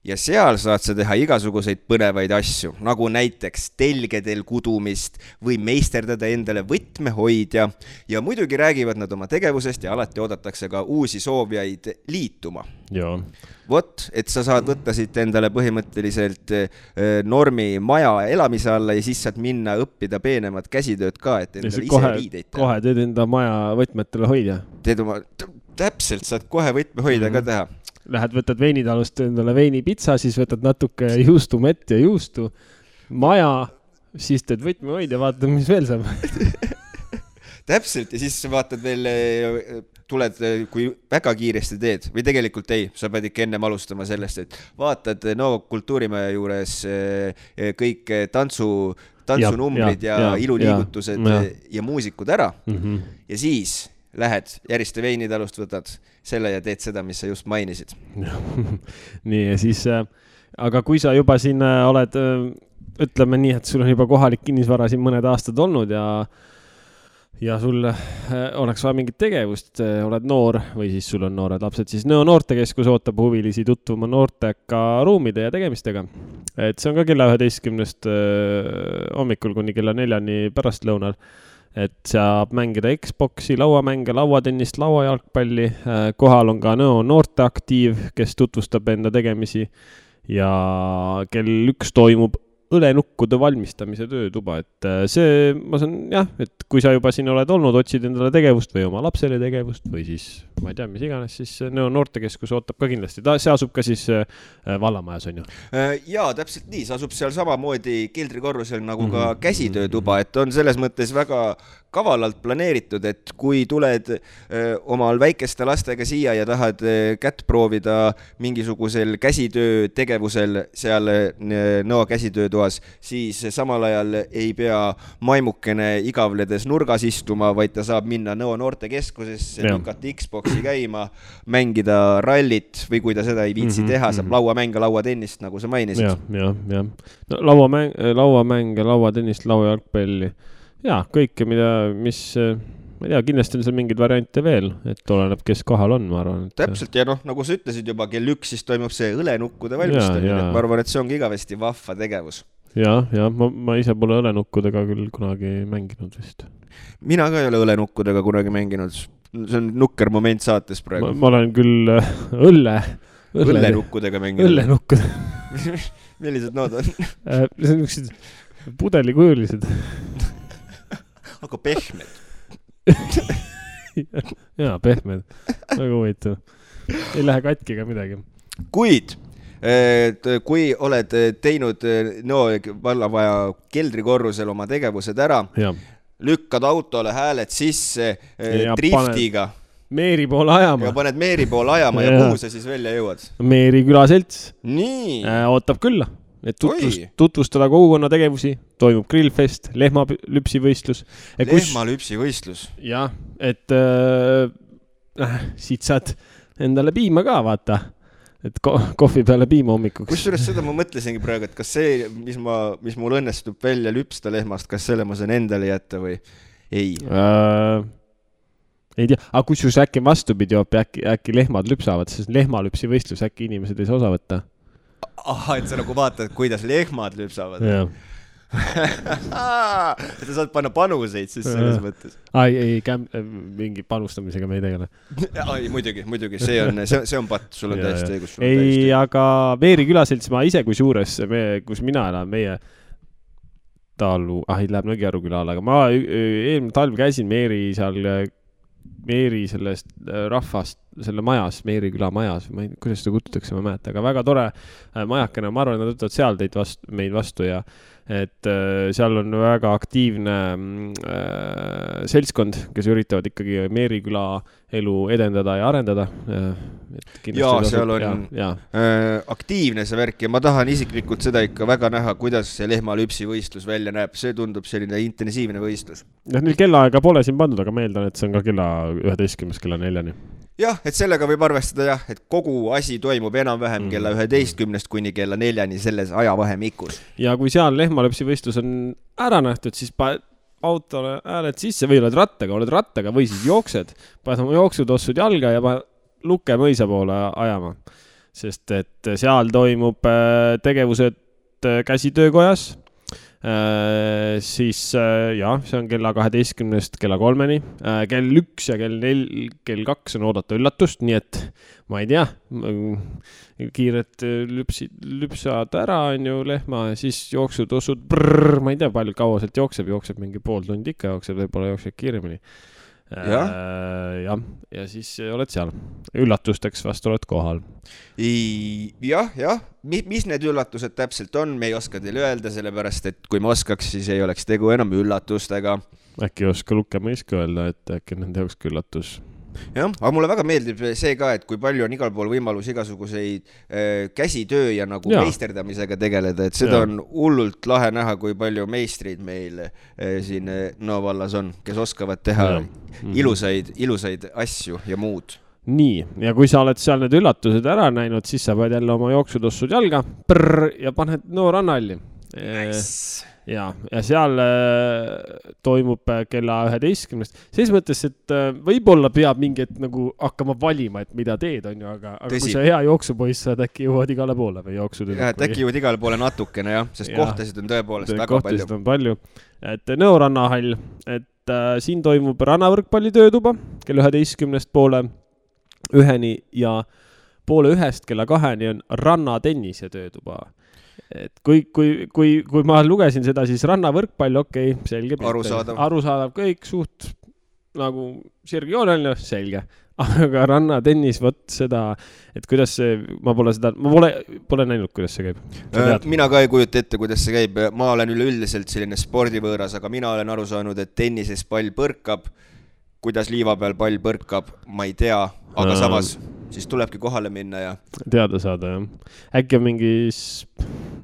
Ja seal saad sa teha igasuguseid põnevaid asju, nagu näiteks telgedel kudumist või meisterdada endale võtmehoidja ja muidugi räägivad nad oma tegevusest ja alati oodatakse ka uusi soovijaid liituma. Joo. Vot, et sa saad võtta siit endale põhimõtteliselt normi maja elamise alla ja siis saad minna õppida peenemat käsitööd ka, et endale ise riideid teha. Kohe teed enda maja võtmetele hoidja. Täpselt, saad kohe võtmehoidja ka teha. Lähed, võtad veinitalust endale veinipitsa, siis võtad natuke juustumett ja juustu, maja, siis teed võtmehoid ja vaatad, mis veel saab. Täpselt, ja siis vaatad veel, tuled, kui väga kiiresti teed, või tegelikult ei, sa pead ikka ennem alustama sellest, et vaatad kultuurimaja juures kõik tantsunumbrid ja iluliigutused ja muusikud ära ja siis lähed järjeste veinitalust, võtad selle ja teed seda, mis sa just mainisid. Nii, ja siis, aga kui sa juba siin oled, ütleme nii, et sul on juba kohalik kinnisvara siin mõned aastad olnud ja sul oleks vaja mingit tegevust, oled noor või siis sul on noored lapsed, siis Nõo noortekeskus ootab huvilisi tutvuma noorteka ruumide ja tegemistega. Et see on ka kella 11 hommikul kuni kella 4 pärastlõunal. Et saab mängida Xboxi, lauamänge, lauatennist, lauajalgpalli. Kohal on ka Nõo noorteaktiiv, kes tutvustab enda tegemisi ja kell 1 toimub õlenukkude valmistamise töötuba. Et see, ma saan, jah, et kui sa juba siin oled olnud, otsid endale tegevust või oma lapsele tegevust või siis, ma ei tea, mis iganes, siis Nõo noortekeskus ootab ka kindlasti. See asub ka siis vallamajas, on ju? Jaa, täpselt nii. See asub seal samamoodi keldrikorrusel nagu ka käsitöötuba, et on selles mõttes väga kavalalt planeeritud, et kui tuled omal väikeste lastega siia ja tahad kätt proovida mingisugusel käsitöö tegevusel seal Nõo käsitöötoas, siis samal ajal ei pea maimukene igavledes nurgas istuma, vaid ta saab minna Nõo noortekeskusesse, lükata Xboxi käima, mängida rallit või kui ta seda ei viitsi teha, saab lauamänge, lauatennist, nagu sa mainisid. Ja. No, lauamänge, lauatennist, lauajalgpalli. Jaa, kõike, mis, ma ei tea, kindlasti on seal mingeid variante veel, et oleneb, kes kohal on, ma arvan. Et... Täpselt, ja nagu sa ütlesid juba, kell 1 siis toimub see õlenukkude valmistamine, et ma arvan, et see ongi igavesti vahva tegevus. Ja, ma ise pole õlenukkudega küll kunagi mänginud vist. Mina ka ei ole õlenukkudega kunagi mänginud, see on nukker moment saates praegu. Ma olen küll õlenukkudega mänginud. Õlenukkud. Millised nood on? See on niisugused pudelikujulised. Aga pehmed. Jaa, pehmed. Väga huvitav. Ei lähe katki ega midagi. Kuid, kui oled teinud Nõo vallamaja keldrikorrusel oma tegevused ära, lükkad autole hääled sisse driftiga. Meeri poole ajama. Ja paned Meeri poole ajama ja kuhu sa siis välja jõuad? Meeri külaselts. Nii. Ootab külla. Et tutvustada kogukonna tegevusi, toimub grillfest, lehmalüpsivõistlus. Lehmalüpsivõistlus? Jah, et siit saad endale piima ka, vaata. et kohvi peale piima hommikuks. Kusjuures seda ma mõtlesingi praegu, et kas see, mis mul õnnestub välja lüpsta lehmast, kas selle ma saan endale jätta või ei? Ei tea, aga kusjuures äkki vastupidi äkki lehmad lüpsavad, sest lehmalüpsi võistlus äkki inimesed ei saa osa võtta. Aha, et sa nagu vaatad, kuidas lehmad lüpsavad. Jah. et sa saad panna panuseid siis selles mõttes. Mingi panustamisega me ei tegele. Muidugi, see on patt, sul on täiesti õigus. Ei, aga Veeri külaselts ma ise kui suures, kus mina elan, meie talu, ei läheb Nõgiaru külal, aga ma eelmine talv käisin Meeri sellest rahvast, selle majas, Meeri küla majas, kuidas seda kutsutakse, ma mäeta, aga väga tore majakene, ma arvan, et nad võtavad seal meid vastu ja et seal on väga aktiivne seltskond, kes üritavad ikkagi Meeri küla elu edendada ja arendada. Jaa, seal on aktiivne see värk ja ma tahan isiklikult seda ikka väga näha, kuidas see lehmalüpsi võistlus välja näeb. See tundub selline intensiivne võistlus. Neil kellaaega pole siin pandud, aga ma eeldan, et see on ka kella 11, kella 4. Jah, et sellega võib arvestada et kogu asi toimub enam-vähem kella 11 kuni kella 4 selles ajavahemikus. Ja kui seal lehmalüpsi võistlus on ära nähtud, siis autole hääled sisse või oled rattaga või siis jooksed, paned oma jooksutossud jalga ja Luke mõisa poole ajama. Sest et seal toimub tegevused käsitöökojas, siis see on kella 12 kella 3, kell 1 ja kell 2 on oodata üllatust, nii et ma ei tea, kiiret lüpsad ära on ju lehma ja siis jooksutossud, ma ei tea, palju kaua sealt jookseb mingi pool tundi ikka võib-olla jookseb kiiremini. Ja siis oled seal. Üllatusteks vast oled kohal. Jah. Mis need üllatused täpselt on, me ei oska teile öelda, sellepärast, et kui ma oskaks, siis ei oleks tegu enam üllatustega. Äkki oska Luke mõiska öelda, et äkki nende jaoks üllatus. Jah, aga mulle väga meeldib see ka, et kui palju on igal pool võimalus igasuguseid käsitöö ja nagu meisterdamisega tegeleda, et seda on hullult lahe näha, kui palju meistrid meil siin Nõo vallas on, kes oskavad teha ilusaid asju ja muud. Nii, ja kui sa oled seal need üllatused ära näinud, siis sa pead jälle oma jooksutossud jalga ja paned Nõo rannahalli. Nice. Ja seal toimub kella 11. Selles mõttes, et võib-olla peab mingi nagu hakkama valima, et mida teed on ju, aga kui sa hea jooksupoiss saad, äkki jõuad igale poole või jooksud. Äkki jõuad igale poole natukene, sest kohtasid on tõepoolest väga palju. Kohtasid on palju. Et Nõo rannahall, et siin toimub rannavõrkpalli töötuba kella 11 poole 1 ja poole 1 kella 2 on rannatennise töötuba. Et kui ma lugesin seda, siis rannavõrkpall, selge. Arusaadav kõik, suht nagu sirgjooneline, selge. Aga rannatennis, seda, et kuidas see, ma pole näinud, kuidas see käib. Mina ka ei kujuta ette, kuidas see käib. Ma olen üleüldiselt selline spordivõõras, aga mina olen aru saanud, et tennises pall põrkab. Kuidas liiva peal pall põrkab, ma ei tea, aga samas siis tulebki kohale minna ja teada saada, jah. Äkki on mingis,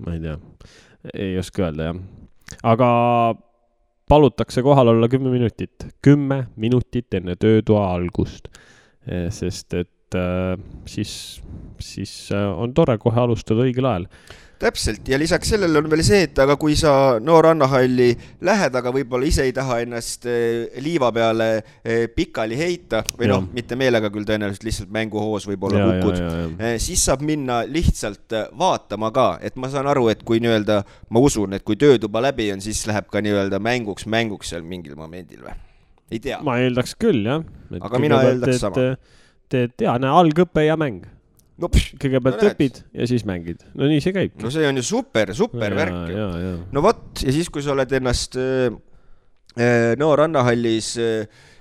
ma ei tea, ei oska öelda, jah. Aga palutakse kohal olla 10 minutit. 10 minutit enne töötoa algust. Sest et siis on tore kohe alustada õigel ajal. Täpselt, ja lisaks sellele on veel see, et aga kui sa Nõo rannahalli lähed, aga võib-olla ise ei taha ennast liiva peale pikali heita, või mitte meelega küll tõenäoliselt lihtsalt mänguhoos võib-olla kukud, siis saab minna lihtsalt vaatama ka, et ma saan aru, et kui ma usun, et kui töötuba läbi on, siis läheb ka mänguks seal mingil momendil või? Ei tea. Ma eeldaks küll, jah. Aga mina eeldaks sama. Algõpe ja mäng. Kõigepealt õpid ja siis mängid. No nii see käib. No see on ju super värk. No võt, ja siis kui sa oled ennast Nõo rannahallis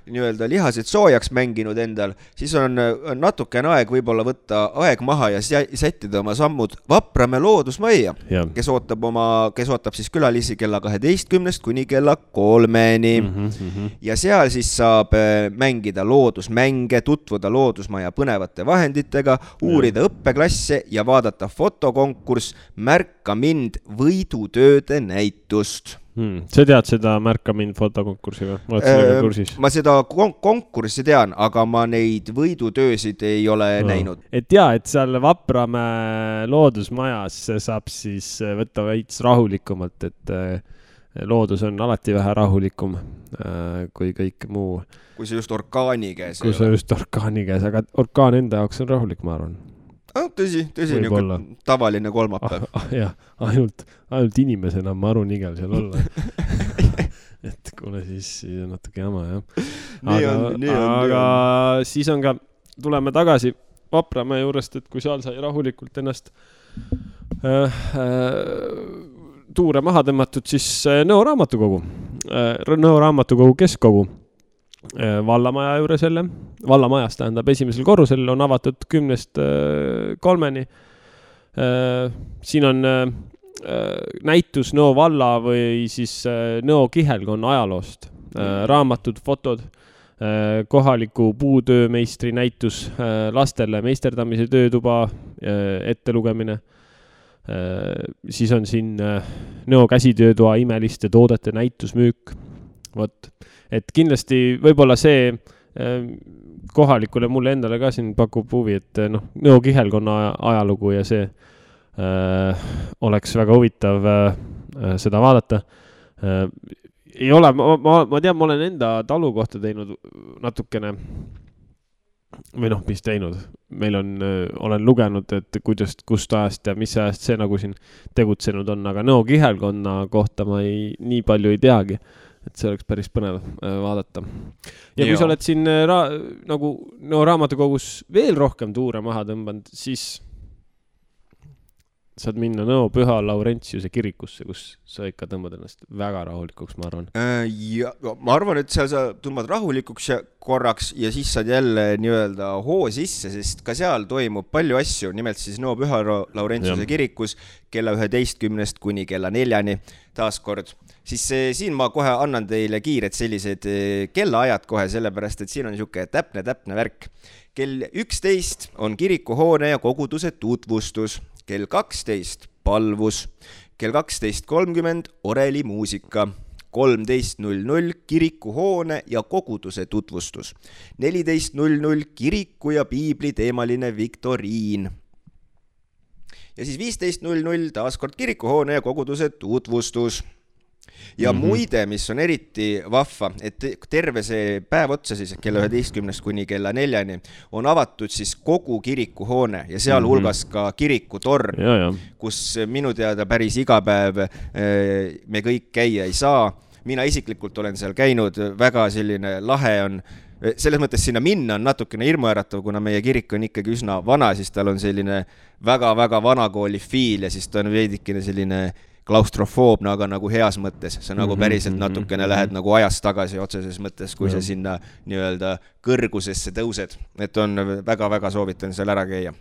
lihased soojaks mänginud endal, siis on natukene aeg võib-olla võtta aeg maha ja sättida oma sammud Vaprame loodusmajja, kes ootab siis külalisi kella 12 kuni kella 3. Ja seal siis saab mängida loodusmänge, tutvuda loodusmaja põnevate vahenditega, uurida õppeklasse ja vaadata fotokonkurss Märka mind võidutööde näitust. Sa tead seda Märka mind fotokonkurssi või? Oled sellega kursis? Ma seda konkurssi tean, aga ma neid võidutöösid ei ole näinud. Et et seal Vapramäe loodusmajas saab siis võtta veits rahulikumalt, et loodus on alati vähe rahulikum kui kõik muu. Kui see just orkaani käes. Kui see just orkaani käes, aga orkaan enda jaoks on rahulik, ma arvan. Tõsi, tavaline kolmapäev. Jah, ainult inimesena ma arun igel seal olla. Et kuule siis natuke jama, jah. Aga siis on ka, tuleme tagasi Vapramäe juurest, et kui seal sai rahulikult ennast tuure maha tõmmatud, siis Nõo raamatukogu keskkogu vallamaja juures jälle, vallamajas tähendab esimesel korrusel on avatud 10-3. Siin on näitus Nõo valla või siis Nõo kihelkonna ajaloost, raamatud, fotod, kohaliku puutöömeistri näitus, lastele meisterdamise töötuba ettelugemine. Siis on siin Nõo käsitöötoa imeliste toodete näitusmüük. Võt. Et kindlasti võib-olla see kohalikule mulle endale ka siin pakub huvi, et Nõo kihelkonna ajalugu ja see oleks väga huvitav seda vaadata. Ei ole, ma tean, ma olen enda talu kohta teinud natukene või mis teinud. Meil olen lugenud, et kust ajast ja mis ajast see nagu siin tegutsenud on, aga Nõo kihelkonna kohta ma nii palju ei teagi. Et see oleks päris põnev vaadata. Ja kui sa oled siin nagu Nõo raamatukogus veel rohkem tuure maha tõmbanud, siis saad minna Nõo Püha Laurentiuse kirikusse, kus sa ikka tõmbad ennast väga rahulikuks, ma arvan. Ja, ma arvan, et seal sa tõmbad rahulikuks korraks ja siis saad jälle nii-öelda hoo sisse, sest ka seal toimub palju asju, nimelt siis Nõo Püha Laurentiuse kirikus kella 11 kuni kella 4 taaskord. Siis siin ma kohe annan teile kiired sellised kellaajad kohe, sellepärast, et siin on niisugune täpne värk. Kell 11 on kirikuhoone ja koguduse tutvustus, kell 12 palvus, kell 12.30 orelimuusika, 13.00 kirikuhoone ja koguduse tutvustus, 14.00 kiriku ja piibli teemaline viktoriin. Ja siis 15.00 taaskord kirikuhoone ja koguduse tutvustus. Ja muide, mis on eriti vahva, et terve see päev otsa siis kella 11 kuni kella 4 on avatud siis kogu kirikuhoone ja seal hulgas ka kirikutorn, kus minu teada päris iga päev me kõik käia ei saa. Mina isiklikult olen seal käinud, väga selline lahe on, selles mõttes sinna minna on natukene hirmuäratav, kuna meie kirik on ikkagi üsna vana, siis tal on selline väga vanakooli fiil ja siis ta on veidikene selline klaustrofoobne, aga nagu heas mõttes. See nagu päriselt natukene lähed nagu ajast tagasi otseses mõttes, kui sa sinna nii-öelda kõrgusesse tõused. Et on väga soovitan seal ära käia.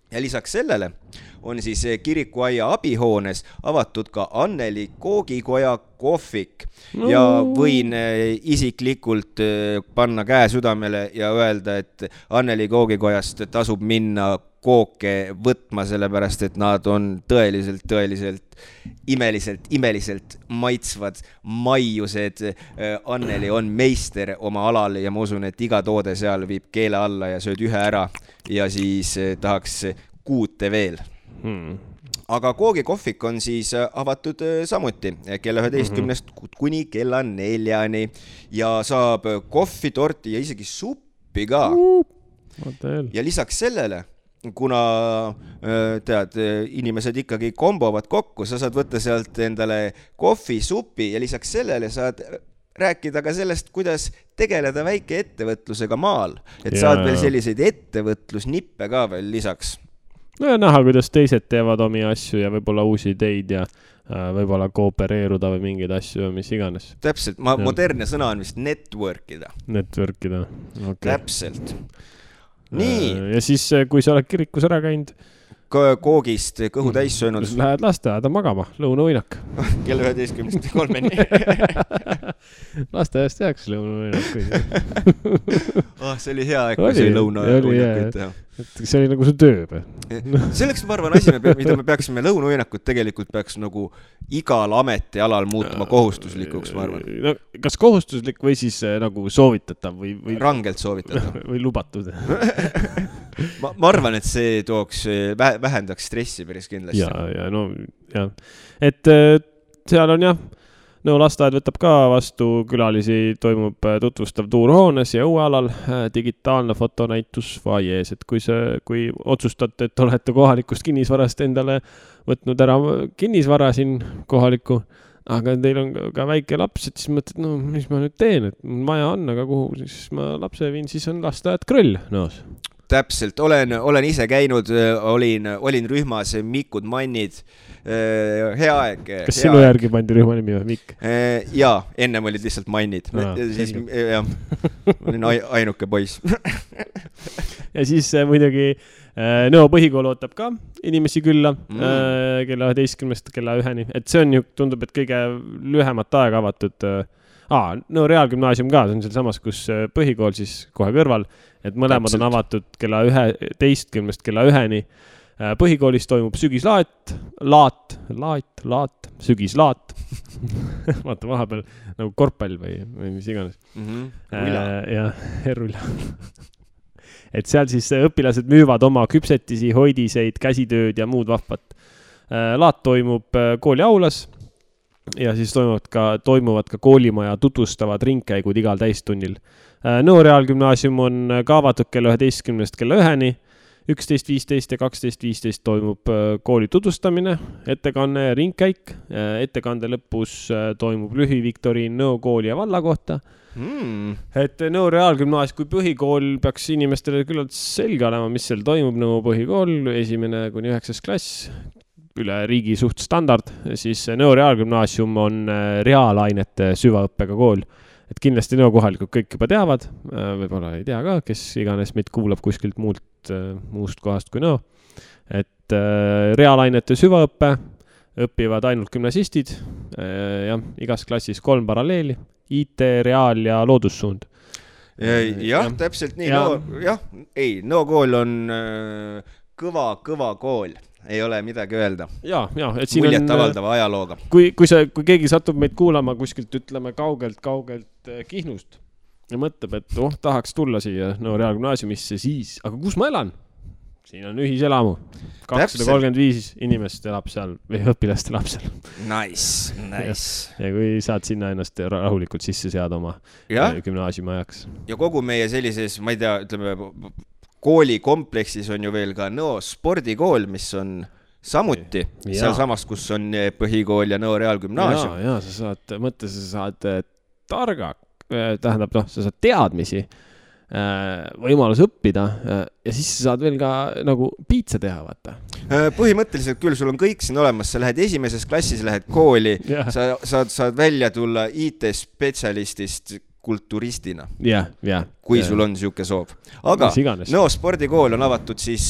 Ja lisaks sellele on siis kirikuaia abihoones avatud ka Anneli Koogikoja kohvik. Ja võin isiklikult panna käe südamele ja öelda, et Anneli Koogikojast tasub minna kooke võtma, sellepärast, et nad on tõeliselt imeliselt maitsvad maiused. Anneli on meister oma alal ja ma usun, et iga toode seal viib keele alla ja sööd ühe ära ja siis tahaks kuute veel. Aga koogikohvik on siis avatud samuti kella 11 kuni kella 4 ja saab kohvi, torti ja isegi suppi ka. Ja lisaks sellele, kuna tead, inimesed ikkagi kombovad kokku, sa saad võtta sealt endale kohvi, supi ja lisaks sellele saad rääkida ka sellest, kuidas tegeleda väike ettevõtlusega maal. Et saad veel selliseid ettevõtlusnippe ka veel lisaks. No ja näha, kuidas teised teevad omi asju ja võib-olla uusi ideid ja võib-olla koopereeruda või mingeid asju või mis iganes. Täpselt, modernne sõna on vist networkida. Networkida, okei. Täpselt. Nii. Ja siis, kui sa oled kirikus ära käinud koogist kõhu täis söönud. Lähed lasteaeda magama, lõunavõinak. Kell 11.3. Lasteaiast jääks lõunavõinak. See oli hea aeg, kui see lõunavõinak teha. et see oli nagu su töö või? Selleks ma arvan asi, mida me peaksime lõunauinakut tegelikult peaks nagu igal ametialal muutuma kohustuslikuks, ma arvan. No, kas kohustuslik või siis nagu soovitatav või rangelt soovitatav või lubatud? ma arvan, et see tooks, vähendaks stressi päris kindlasti. Ja no jah, et seal on jah, no lasteaed võtab ka vastu külalisi, toimub tutvustav tuur hoones ja õuealal, digitaalne fotonäitus vaiees, et kui otsustate, et olete kohalikust kinnisvarast endale võtnud ära kinnisvara siin kohaliku, aga teil on ka väike laps, et siis mõtled, no mis ma nüüd teen, et maja on, aga kuhu siis ma lapse viin, siis on lasteaed Krõll noos. Täpselt, olen ise käinud, olin rühmas Mikud Mannid, hea aeg. Kas sinu järgi pandi rühma nimi või Mikk? Jaa, ennem olid lihtsalt Mannid. Siis, jah, olin ainuke poiss. Ja siis muidugi Nõo põhikool ootab ka inimesi külla kella 11 kella 1. Et see on ju, tundub, et kõige lühemat aega avatud. Nõo Reaalgümnaasium ka, see on seal samas, kus põhikool siis kohe kõrval, et mõlemad on avatud kella 11 kella 1. Põhikoolis toimub sügislaat, sügislaat. Vaata vahepeal nagu korvpall või mis iganes. Ja Rulla. Et seal siis õpilased müüvad oma küpsetisi, hoidiseid, käsitööd ja muud vahvat. Laat toimub kooli aulas ja siis toimuvad ka koolimaja tutvustavad ringkäigud igal täistunnil. Nõo Reaalgümnaasium on ka avatud kella 11 kella 1. 11.15 ja 12.15 toimub kooli tutvustamine, ettekanne ja ringkäik. Ettekande lõpus toimub lühiviktoriin Nõo kooli ja valla kohta. Et Nõo Reaalgümnaasium kui põhikool peaks inimestele küllalt selge olema, mis seal toimub. Nõo põhikool 1.–9. klass, üle riigi suht standard, siis Nõo Reaalgümnaasium on reaalainete süvaõppega kool. Et kindlasti Nõo kohalikud kõik juba teavad, võib-olla ei tea ka, kes iganes meid kuulab kuskilt muust kohast kui Nõo. Et reaalainete süvaõppe õpivad ainult gümnasistid, igas klassis 3 paralleeli, IT, reaal ja loodussuund. Jah, täpselt nii. Nõo kool on kõva kool. Ei ole midagi öelda. Et siin muljet avaldava ajalooga. Kui keegi satub meid kuulama kuskilt, ütleme, kaugelt Kihnust ja mõtleb, et tahaks tulla siia Nõo Reaalgümnaasiumisse, siis, aga kus ma elan? Siin on ühiselamu. 235 inimest elab seal või õpilast elab seal. Nice. Ja kui saad sinna ennast rahulikult sisse seada oma gümnaasiumi ajaks. Ja kogu meie sellises, ma ei tea, ütleme, koolikompleksis on ju veel ka Nõo spordikool, mis on samuti seal samas, kus on põhikool ja Nõo Reaalgümnaasium. Ja, sa saad targa, tähendab, sa saad teadmisi, võimalus õppida ja siis sa saad veel ka nagu piitsa teha, vaata. Põhimõtteliselt küll, sul on kõik siin olemas, sa lähed esimeses klassis, lähed kooli, sa saad välja tulla IT-spetsialistist kulturistina, kui sul on siuke soov. Aga Nõo spordikool on avatud siis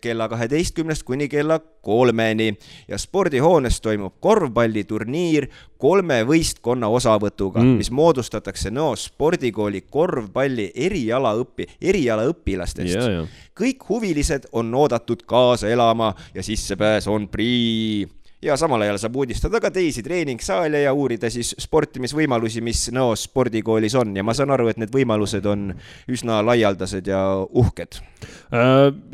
kella 12 kuni kella 3 ja spordihoones toimub korvpalliturniir 3 võistkonna osavõtuga, mis moodustatakse Nõo spordikooli korvpalli erialaõpilastest. Kõik huvilised on oodatud kaasa elama ja sissepääs on prii. Ja samal ajal saab uudistada ka teisi treeningsaale ja uurida siis sportimisvõimalusi, mis Nõo spordikoolis on. Ja ma saan aru, et need võimalused on üsna laialdased ja uhked.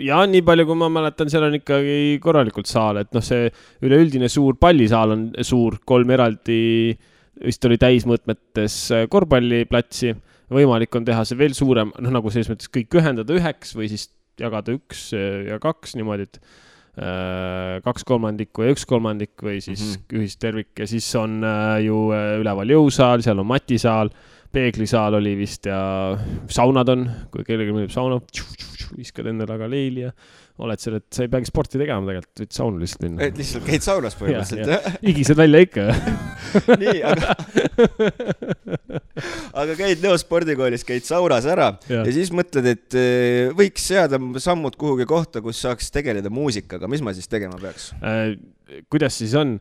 Ja nii palju, kui ma mäletan, seal on ikkagi korralikult saal. Et see üleüldine suur pallisaal on suur, 3 eraldi, vist oli täismõõtmetes korvpalliplatsi. Võimalik on teha see veel suurem, nagu selles mõttes kõik ühendada 1 või siis jagada 1 ja 2 niimoodi, et 2/3 ja 1/3 või siis ühistervik ja siis on ju üleval jõusaal, seal on matisaal, peeglisaal oli vist ja saunad on, kui kellelgi mõneb sauna, viskad endale aga leili ja oled seal, et sa ei peagi sporti tegema tegelikult, võid saunu lihtsalt minna. Et lihtsalt käid saunas põhimõtteliselt. Igised välja ikka. Nii, aga käid Nõo spordikoolis, käid saunas ära ja siis mõtled, et võiks seada sammud kuhugi kohta, kus saaks tegeleda muusikaga. Mis ma siis tegema peaks? Kuidas siis on?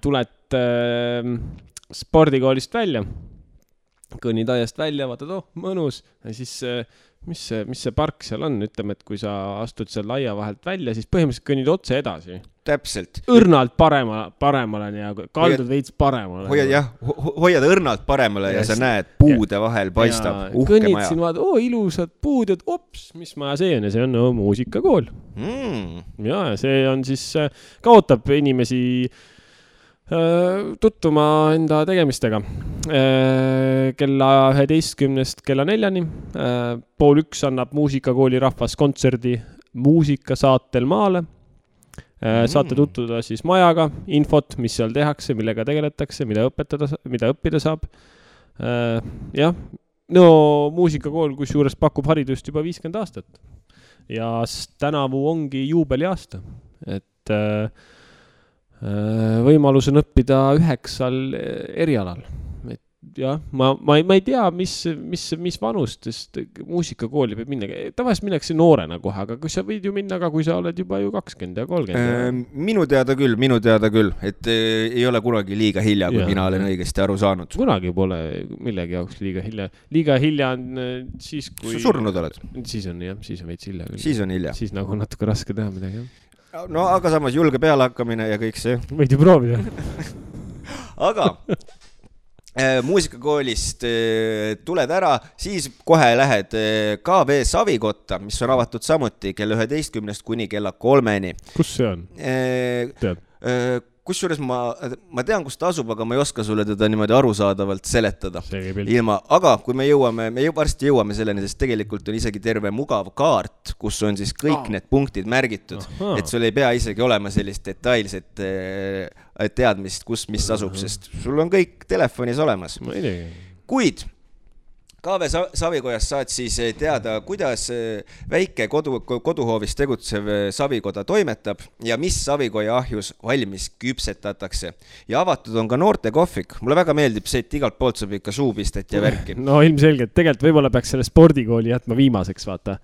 Tuled spordikoolist välja, kõnnid aiast välja, vaatad, mõnus ja siis mis see park seal on, ütleme, et kui sa astud seal laia vahelt välja, siis põhimõtteliselt kõnnid otse edasi. Täpselt. Õrnalt paremale ja kaldud veits paremale. Hoiad õrnalt paremale ja sa näed puude vahel paistab uhke kõnnid maja. Kõnnid siin vaad, ilusad puud, et mis maja see on ja see on muusikakool. Ja see on siis, kaotab inimesi tuttuma enda tegemistega kella 11 kella 4 pool 1 annab muusikakooli rahvas kontserdi muusikasaatel maale. Saate tutvuda siis majaga, infot, mis seal tehakse, millega tegeletakse, mida õppida saab. Muusikakool kusjuures pakub haridust juba 50 aastat ja tänavu ongi juubeliaasta, et võimalus on õppida 9 erialal. Ma ei tea, mis vanustest muusikakooli peab minna. Tavaliselt minnakse noorena kohe, aga kui sa võid ju minna, aga kui sa oled juba ju 20 ja 30. Minu teada küll, et ei ole kunagi liiga hilja, kui mina olen õigesti aru saanud. Kunagi pole millegi jaoks liiga hilja. Liiga hilja on siis, kui... Surnud oled? Siis on veits hilja küll. Siis on hilja. Siis nagu natuke raske teha midagi, jah. No aga samas julge peale hakkamine ja kõik see. Võid ju proovida. Aga muusikakoolist tuled ära, siis kohe lähed KV Savikotta, mis on avatud samuti kella 11 kuni kella 3. Kus see on? Tead? Kusjuures ma tean, kus ta asub, aga ma ei oska sulle teda niimoodi arusaadavalt seletada. Aga kui me varsti jõuame selleni, sest tegelikult on isegi terve mugav kaart, kus on siis kõik need punktid märgitud, et sul ei pea isegi olema sellist detailset teadmist, kus mis asub, sest sul on kõik telefonis olemas. Kuid KV Savikojas saad siis teada, kuidas väike koduhoovis tegutsev Savikoda toimetab ja mis Savikoja ahjus valmis küpsetatakse. Ja avatud on ka noorte kohvik. Mulle väga meeldib see, et igalt poolt saab ikka suupistet ja värki. No ilmselgelt, tegelikult võib-olla peaks selle spordikooli jätma viimaseks, vaata.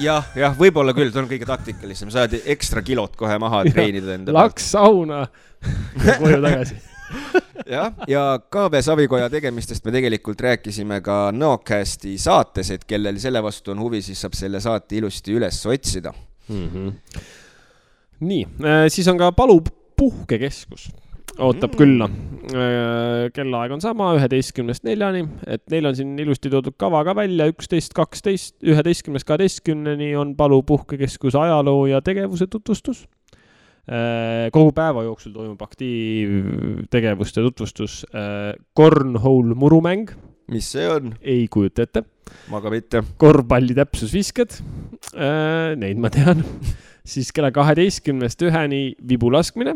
Jah, võib-olla küll, ta on kõige taktikalisem. Saad ekstra kilot kohe maha treenida enda. Laks sauna ja koju tagasi. ja KV Savikoja tegemistest me tegelikult rääkisime ka Nõocasti saates, et kellel selle vastu on huvi, siis saab selle saate ilusti üles otsida. Nii, siis on ka Palu puhkekeskus. Ootab külla. Kellaaeg on sama, 11-4, et neil on siin ilusti toodud kava ka välja, 11-12, 11-12 on Palu puhkekeskus ajaloo ja tegevuse tutvustus. Kogu päeva jooksul toimub aktiivtegevuste tutvustus Cornhole murumäng. Mis see on? Ei kujuta ette. Ma ka mitte. Korvpalli täpsusvisked. Neid ma tean. Siis kella 12-1 vibulaskmine.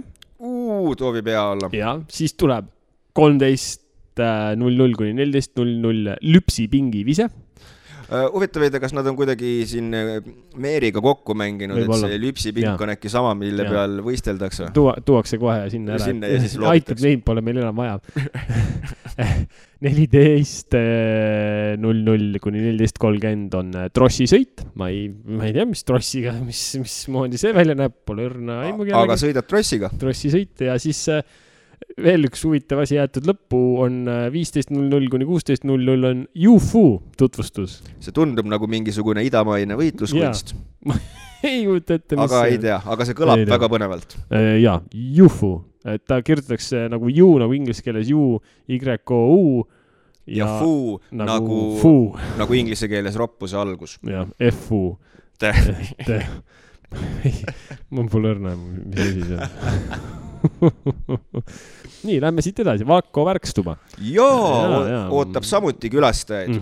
Toovi pea olla. Ja, siis tuleb 13:00 kuni 14:00 lüpsipingi vise. Huvitav, kas nad on kuidagi siin Meeriga kokku mänginud, et see lüpsipink on äkki sama, mille peal võisteldakse? Tuuakse kohe sinna ära. Sinna ja siis aitab, neid pole meil enam vaja. 14:00 kuni 14:30 on trossisõit. Ma ei tea, mis trossiga, mis moodi see välja näeb, pole õrna aimugi. Aga sõidad trossiga? Trossisõit ja siis veel üks huvitav asi jäetud lõppu on 15:00 kuni 16:00 on UFO tutvustus. See tundub nagu mingisugune idamaine võitluskunst. Ei kujuta ette, mis aga ei tea, aga see kõlab väga põnevalt. Jaa, UFO. Et ta kirjutatakse nagu U, nagu inglise keeles U, Y-O-U. Ja fuu nagu inglise keeles roppuse algus. Ja, F-U. Mul pole õrna, mis asi see on. Nii, lähme siit edasi. Vakko Värkstuba. Ootab samuti külastajaid.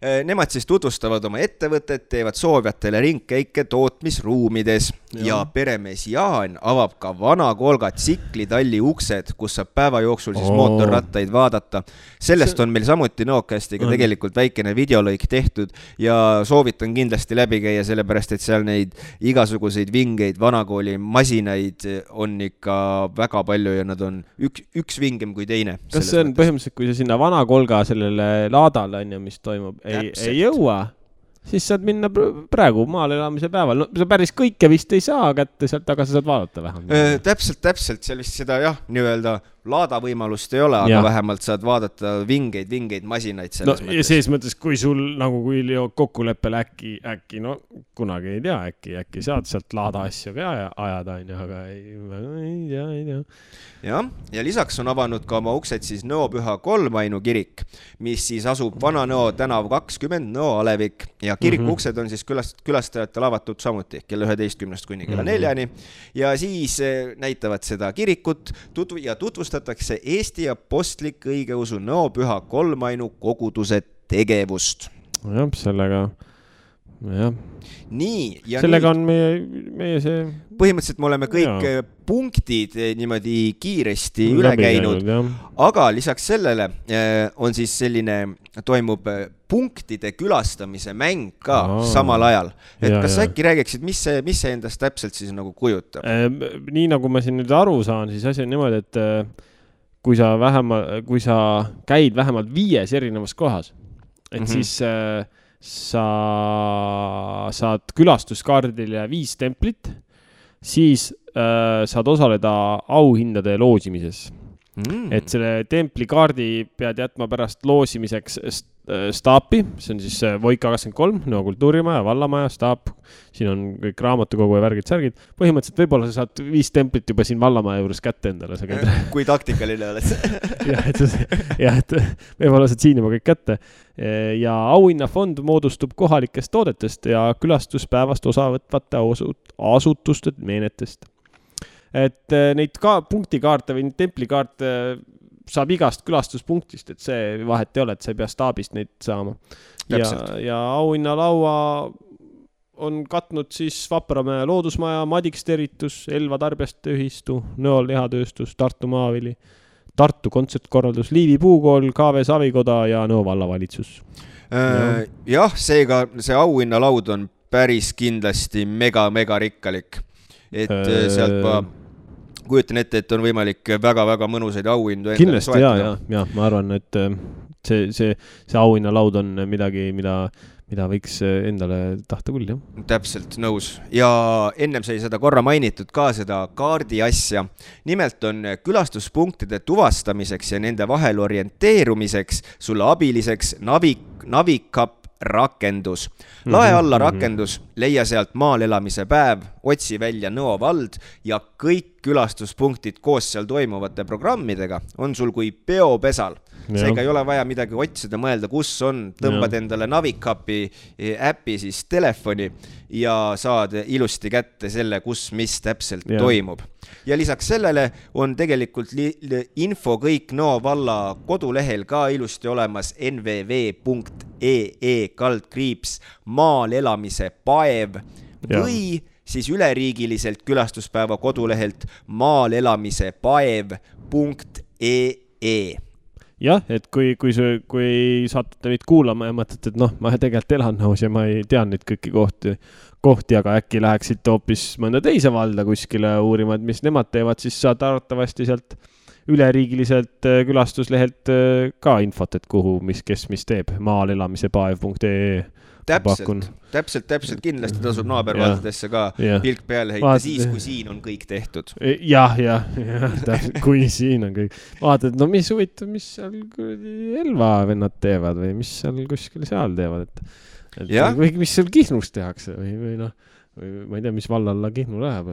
Nemad siis tutvustavad oma ettevõtet, teevad soovjatele ringkäike tootmisruumides ja peremees Jaan avab ka vana Kolga tsiklitalli uksed, kus saab päeva jooksul siis mootorrattaid vaadata. Sellest on meil samuti Nõocastiga tegelikult väikene videolõik tehtud ja soovitan kindlasti läbi käia, sellepärast et seal neid igasuguseid vingeid vanakooli masinaid on ikka väga palju ja nad on üks vingem kui teine. Kas see on põhimõtteliselt, kui sa sinna vana Kolga sellele laadale on ja mis toimub? Ei jõua, siis saad minna praegu maal elamise päeval. No, sa päris kõike vist ei saa kätte sealt, aga sa saad vaadata vähem. Täpselt, seal vist seda jah, nii-öelda laada võimalust ei ole, aga Ja. vähemalt saad vaadata vingeid masinaid selles ja selles mõttes, kui sul nagu kui kokkuleppel äkki, no kunagi ei tea, äkki saad sealt laada asju ka ajada, aga ei tea. Ja lisaks on avanud ka oma uksed siis Nõo Püha Kolmainu kirik, mis siis asub Vana-Nõo tänav 20 Nõo Alevik ja kiriku uksed on siis külastajatele avatud samuti kella 11 kuni kella 4 ja siis näitavad seda kirikut ja tutvustatakse Eesti Apostlik Õigeusu Nõo Püha Kolmainu koguduse tegevust. Jah, sellega Nii, ja sellega on meie see põhimõtteliselt me oleme kõik punktid niimoodi kiiresti üle käinud, aga lisaks sellele on siis toimub punktide külastamise mäng ka samal ajal. Et kas äkki räägiksid, mis see endast täpselt siis nagu kujutab? Nii nagu ma siin nüüd aru saan, siis asi on niimoodi, et kui sa käid vähemalt 5 erinevas kohas, et siis sa saad külastuskaardile 5 templit, siis saad osaleda auhindade loosimises. Et selle templikaardi pead jätma pärast loosimiseks staapi, see on siis Voika 23, Nõo kultuurimaja, vallamaja, staap, siin on kõik raamatukogu ja värgid-särgid. Põhimõtteliselt võib-olla sa saad 5 templit juba siin vallamaja juures kätte endale. Kui taktikaline oled. et võib-olla saad siin juba kõik kätte. Ja auhinnafond moodustub kohalikest toodetest ja külastuspäevast osavõtvate asutuste meenetest. Et neid ka punktikaarte või templikaarte saab igast külastuspunktist, et see vahet ei ole, et sa ei pea staabist neid saama. Ja auhinnalaua on katnud siis Vapramäe loodusmaja, Madiksterritus, Elva tarbjaste ühistu, Nõo lihatööstus, Tartu Maavili, Tartu kontsertkorraldus, Liivi puukool, KV Savikoda ja Nõo vallavalitsus. Jah, seega see auhinnalaud on päris kindlasti mega rikkalik. Et sealt ma kujutan ette, et on võimalik väga mõnusaid auhindu endale soetada. Kindlasti, ma arvan, et see auhinnalaud on midagi, mida võiks endale tahta küll, jah. Täpselt, nõus. Ja ennem sai seda korra mainitud ka seda kaardi asja. Nimelt on külastuspunktide tuvastamiseks ja nende vahel orienteerumiseks sulle abiliseks Navikap rakendus. Lae alla rakendus, leia sealt maal elamise päev, otsi välja Nõo vald ja kõik külastuspunktid koos seal toimuvate programmidega on sul kui peopesal. Seega ei ole vaja midagi otsida, mõelda, kus on, tõmbad endale Navikapi äppi siis telefoni ja saad ilusti kätte selle, kus mis täpselt toimub. Ja lisaks sellele on tegelikult info kõik Nõo valla kodulehel ka ilusti olemas nvv.ee/maal elamise paev või siis üleriigiliselt külastuspäeva kodulehelt maalelamisepaev.ee. Jah, et kui saatute meid kuulama ja mõtlete, et ma tegelikult elan Nõos ja ma ei tea nüüd kõiki kohti, aga äkki läheksid hoopis mõnda teise valda kuskile uurima, et mis nemad teevad, siis saad arvatavasti sealt üleriigiliselt külastuslehelt ka infot, et kuhu, kes mis teeb, maalelamisepaev.ee. Täpselt kindlasti tasub naabervaldadesse ka pilk peale heita siis, kui siin on kõik tehtud. Jah, kui siin on kõik. Vaatad, mis huvitav, mis seal Elva vennad teevad või mis seal kuskil seal teevad, või mis seal Kihnus tehakse või ma ei tea, mis vallalla Kihnu läheb.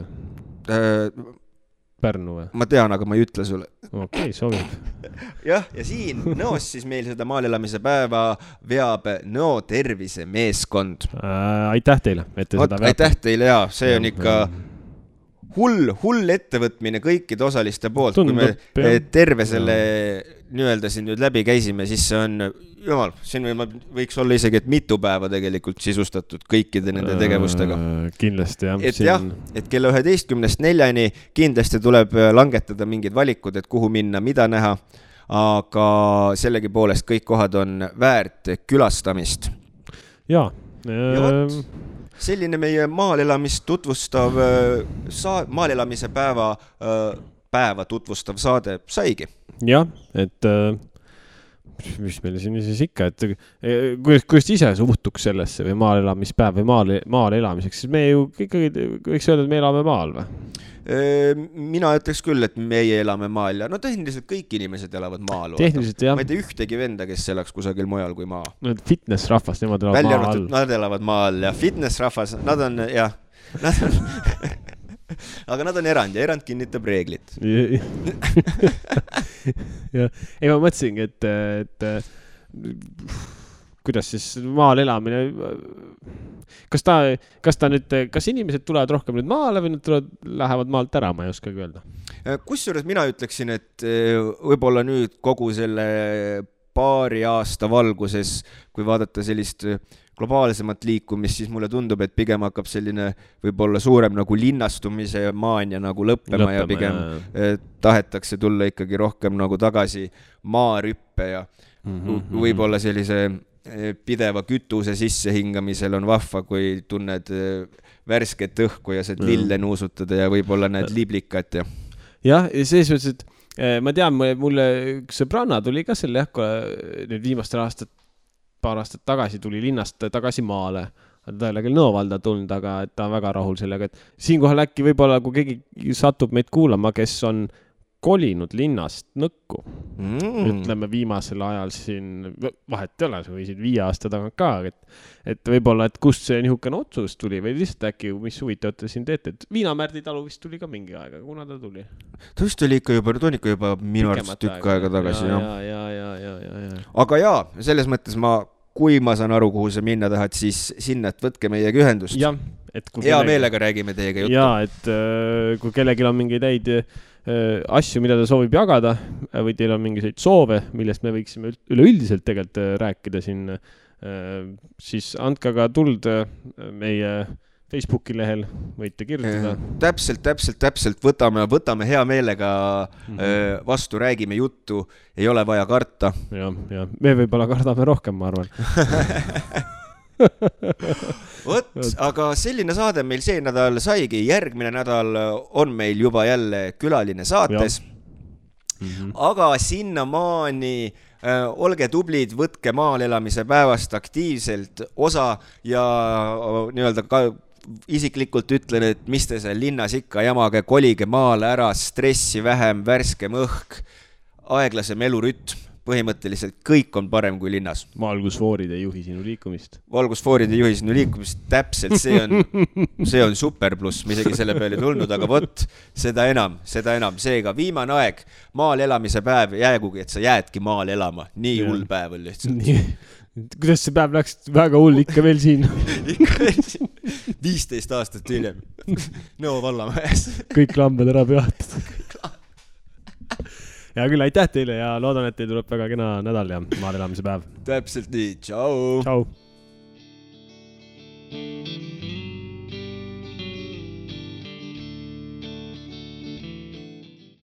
Pärnu või? Ma tean, aga ma ei ütle sulle. Okei, sobib. Ja siin Nõos siis meil seda maalelamise päeva veab Nõo tervisemeeskond. Aitäh teile, et te seda veab. Aitäh teile, see on ikka hull ettevõtmine kõikide osaliste poolt. Kui me terve selle nii-öelda siin nüüd läbi käisime, siis see on, jumal, siin võiks olla isegi, et mitu päeva tegelikult sisustatud kõikide nende tegevustega. Kindlasti, et kella 11:04 kindlasti tuleb langetada mingid valikud, et kuhu minna, mida näha, aga sellegi poolest kõik kohad on väärt külastamist. Ja selline meie maalelamist tutvustav maalelamise päeva tutvustav saade saigi. Jah, et mis meil siin siis ikka, et kuidas ise suhtuks sellesse või maalelamispäev või maal elamiseks, siis me ju ikkagi võiks öelda, et me elame maal või? Mina ütleks küll, et meie elame maal ja no tehniliselt kõik inimesed elavad maal. Tehniliselt jah. Ma ei tea ühtegi venda, kes elaks kusagil mujal kui maa. No fitness-rahvas, nemad elavad maa all. Nad elavad maal ja fitness-rahvas, nad on, jah, nad on aga nad on erand ja erand kinnitab reeglit. Ja. Ei, ma mõtlesingi, et kuidas siis maal elamine, kas inimesed tulevad rohkem nüüd maale või nad lähevad maalt ära, ma ei oskagi öelda. Kusjuures mina ütleksin, et võib-olla nüüd kogu selle paari aasta valguses, kui vaadata sellist globaalsemat liikumist, siis mulle tundub, et pigem hakkab selline võib-olla suurem nagu linnastumise maania nagu lõppema ja pigem tahetakse tulla ikkagi rohkem nagu tagasi maarüppe ja võib-olla sellise pideva kütuse sissehingamisel on vahva, kui tunned värsket õhku ja saad lille nuusutada ja võib-olla näed liblikat ja. Jah, ja selles mõttes, et ma tean, mulle üks sõbranna tuli ka selle nüüd viimastel paar aastat tagasi tuli linnast tagasi maale. Ta ei ole küll Nõovalda tulnud, aga ta on väga rahul sellega, et siinkohal äkki võib-olla, kui keegi satub meid kuulama, kes on kolinud linnast Nõkku. Ütleme viimasel ajal siin, vahet ei ole, see võisid 5 aasta tagant ka, et võib-olla, et kust see nihukene otsus tuli või lihtsalt äkki, mis huvitavat te siin teete, et Viinamärdi talu vist tuli ka mingi aega, kuna ta tuli? Ta vist oli ikka juba minu arvast tükk aega tagasi. Ja. Aga jaa, selles mõttes kui ma saan aru, kuhu sa minna tahad, siis sinna, et võtke meiega ühendust. Ja, hea meelega räägime teiega juttu. Ja, et kui kellelgi on mingeid häid asju, mida ta soovib jagada või teil on mingeid soove, millest me võiksime üleüldiselt tegelikult rääkida siin, siis andke aga tuld meie Facebooki lehel, võite kirjutada. Täpselt, võtame hea meelega vastu, räägime juttu, ei ole vaja karta. Ja, me võib-olla kardame rohkem, ma arvan. Aga selline saade meil see nädal saigi, järgmine nädal on meil juba jälle külaline saates. Aga sinnamaani olge tublid, võtke maal elamise päevast aktiivselt osa ja nii-öelda ka isiklikult ütlen, et mis te seal linnas ikka jamage, kolige maale ära, stressi vähem, värskem õhk, aeglasem elurütm. Põhimõtteliselt kõik on parem kui linnas. Valgusfoorid ei juhi sinu liikumist. Valgusfoorid ei juhi sinu liikumist, täpselt, see on super pluss, me isegi selle peale tulnud, aga võt, seda enam, seega viimane aeg, maal elamise päev, jäägugi, et sa jäädki maal elama, nii hull päev on lihtsalt. Kuidas see päev läks väga hull ikka veel siin? Ikka veel siin, 15 aastat hiljem, Nõo vallamajas. Kõik lambad ära peatud. Ja küll, aitäh teile ja loodan, et teil tuleb väga kena nädal ja maal elamise päev. Täpselt nii, tšau! Tšau!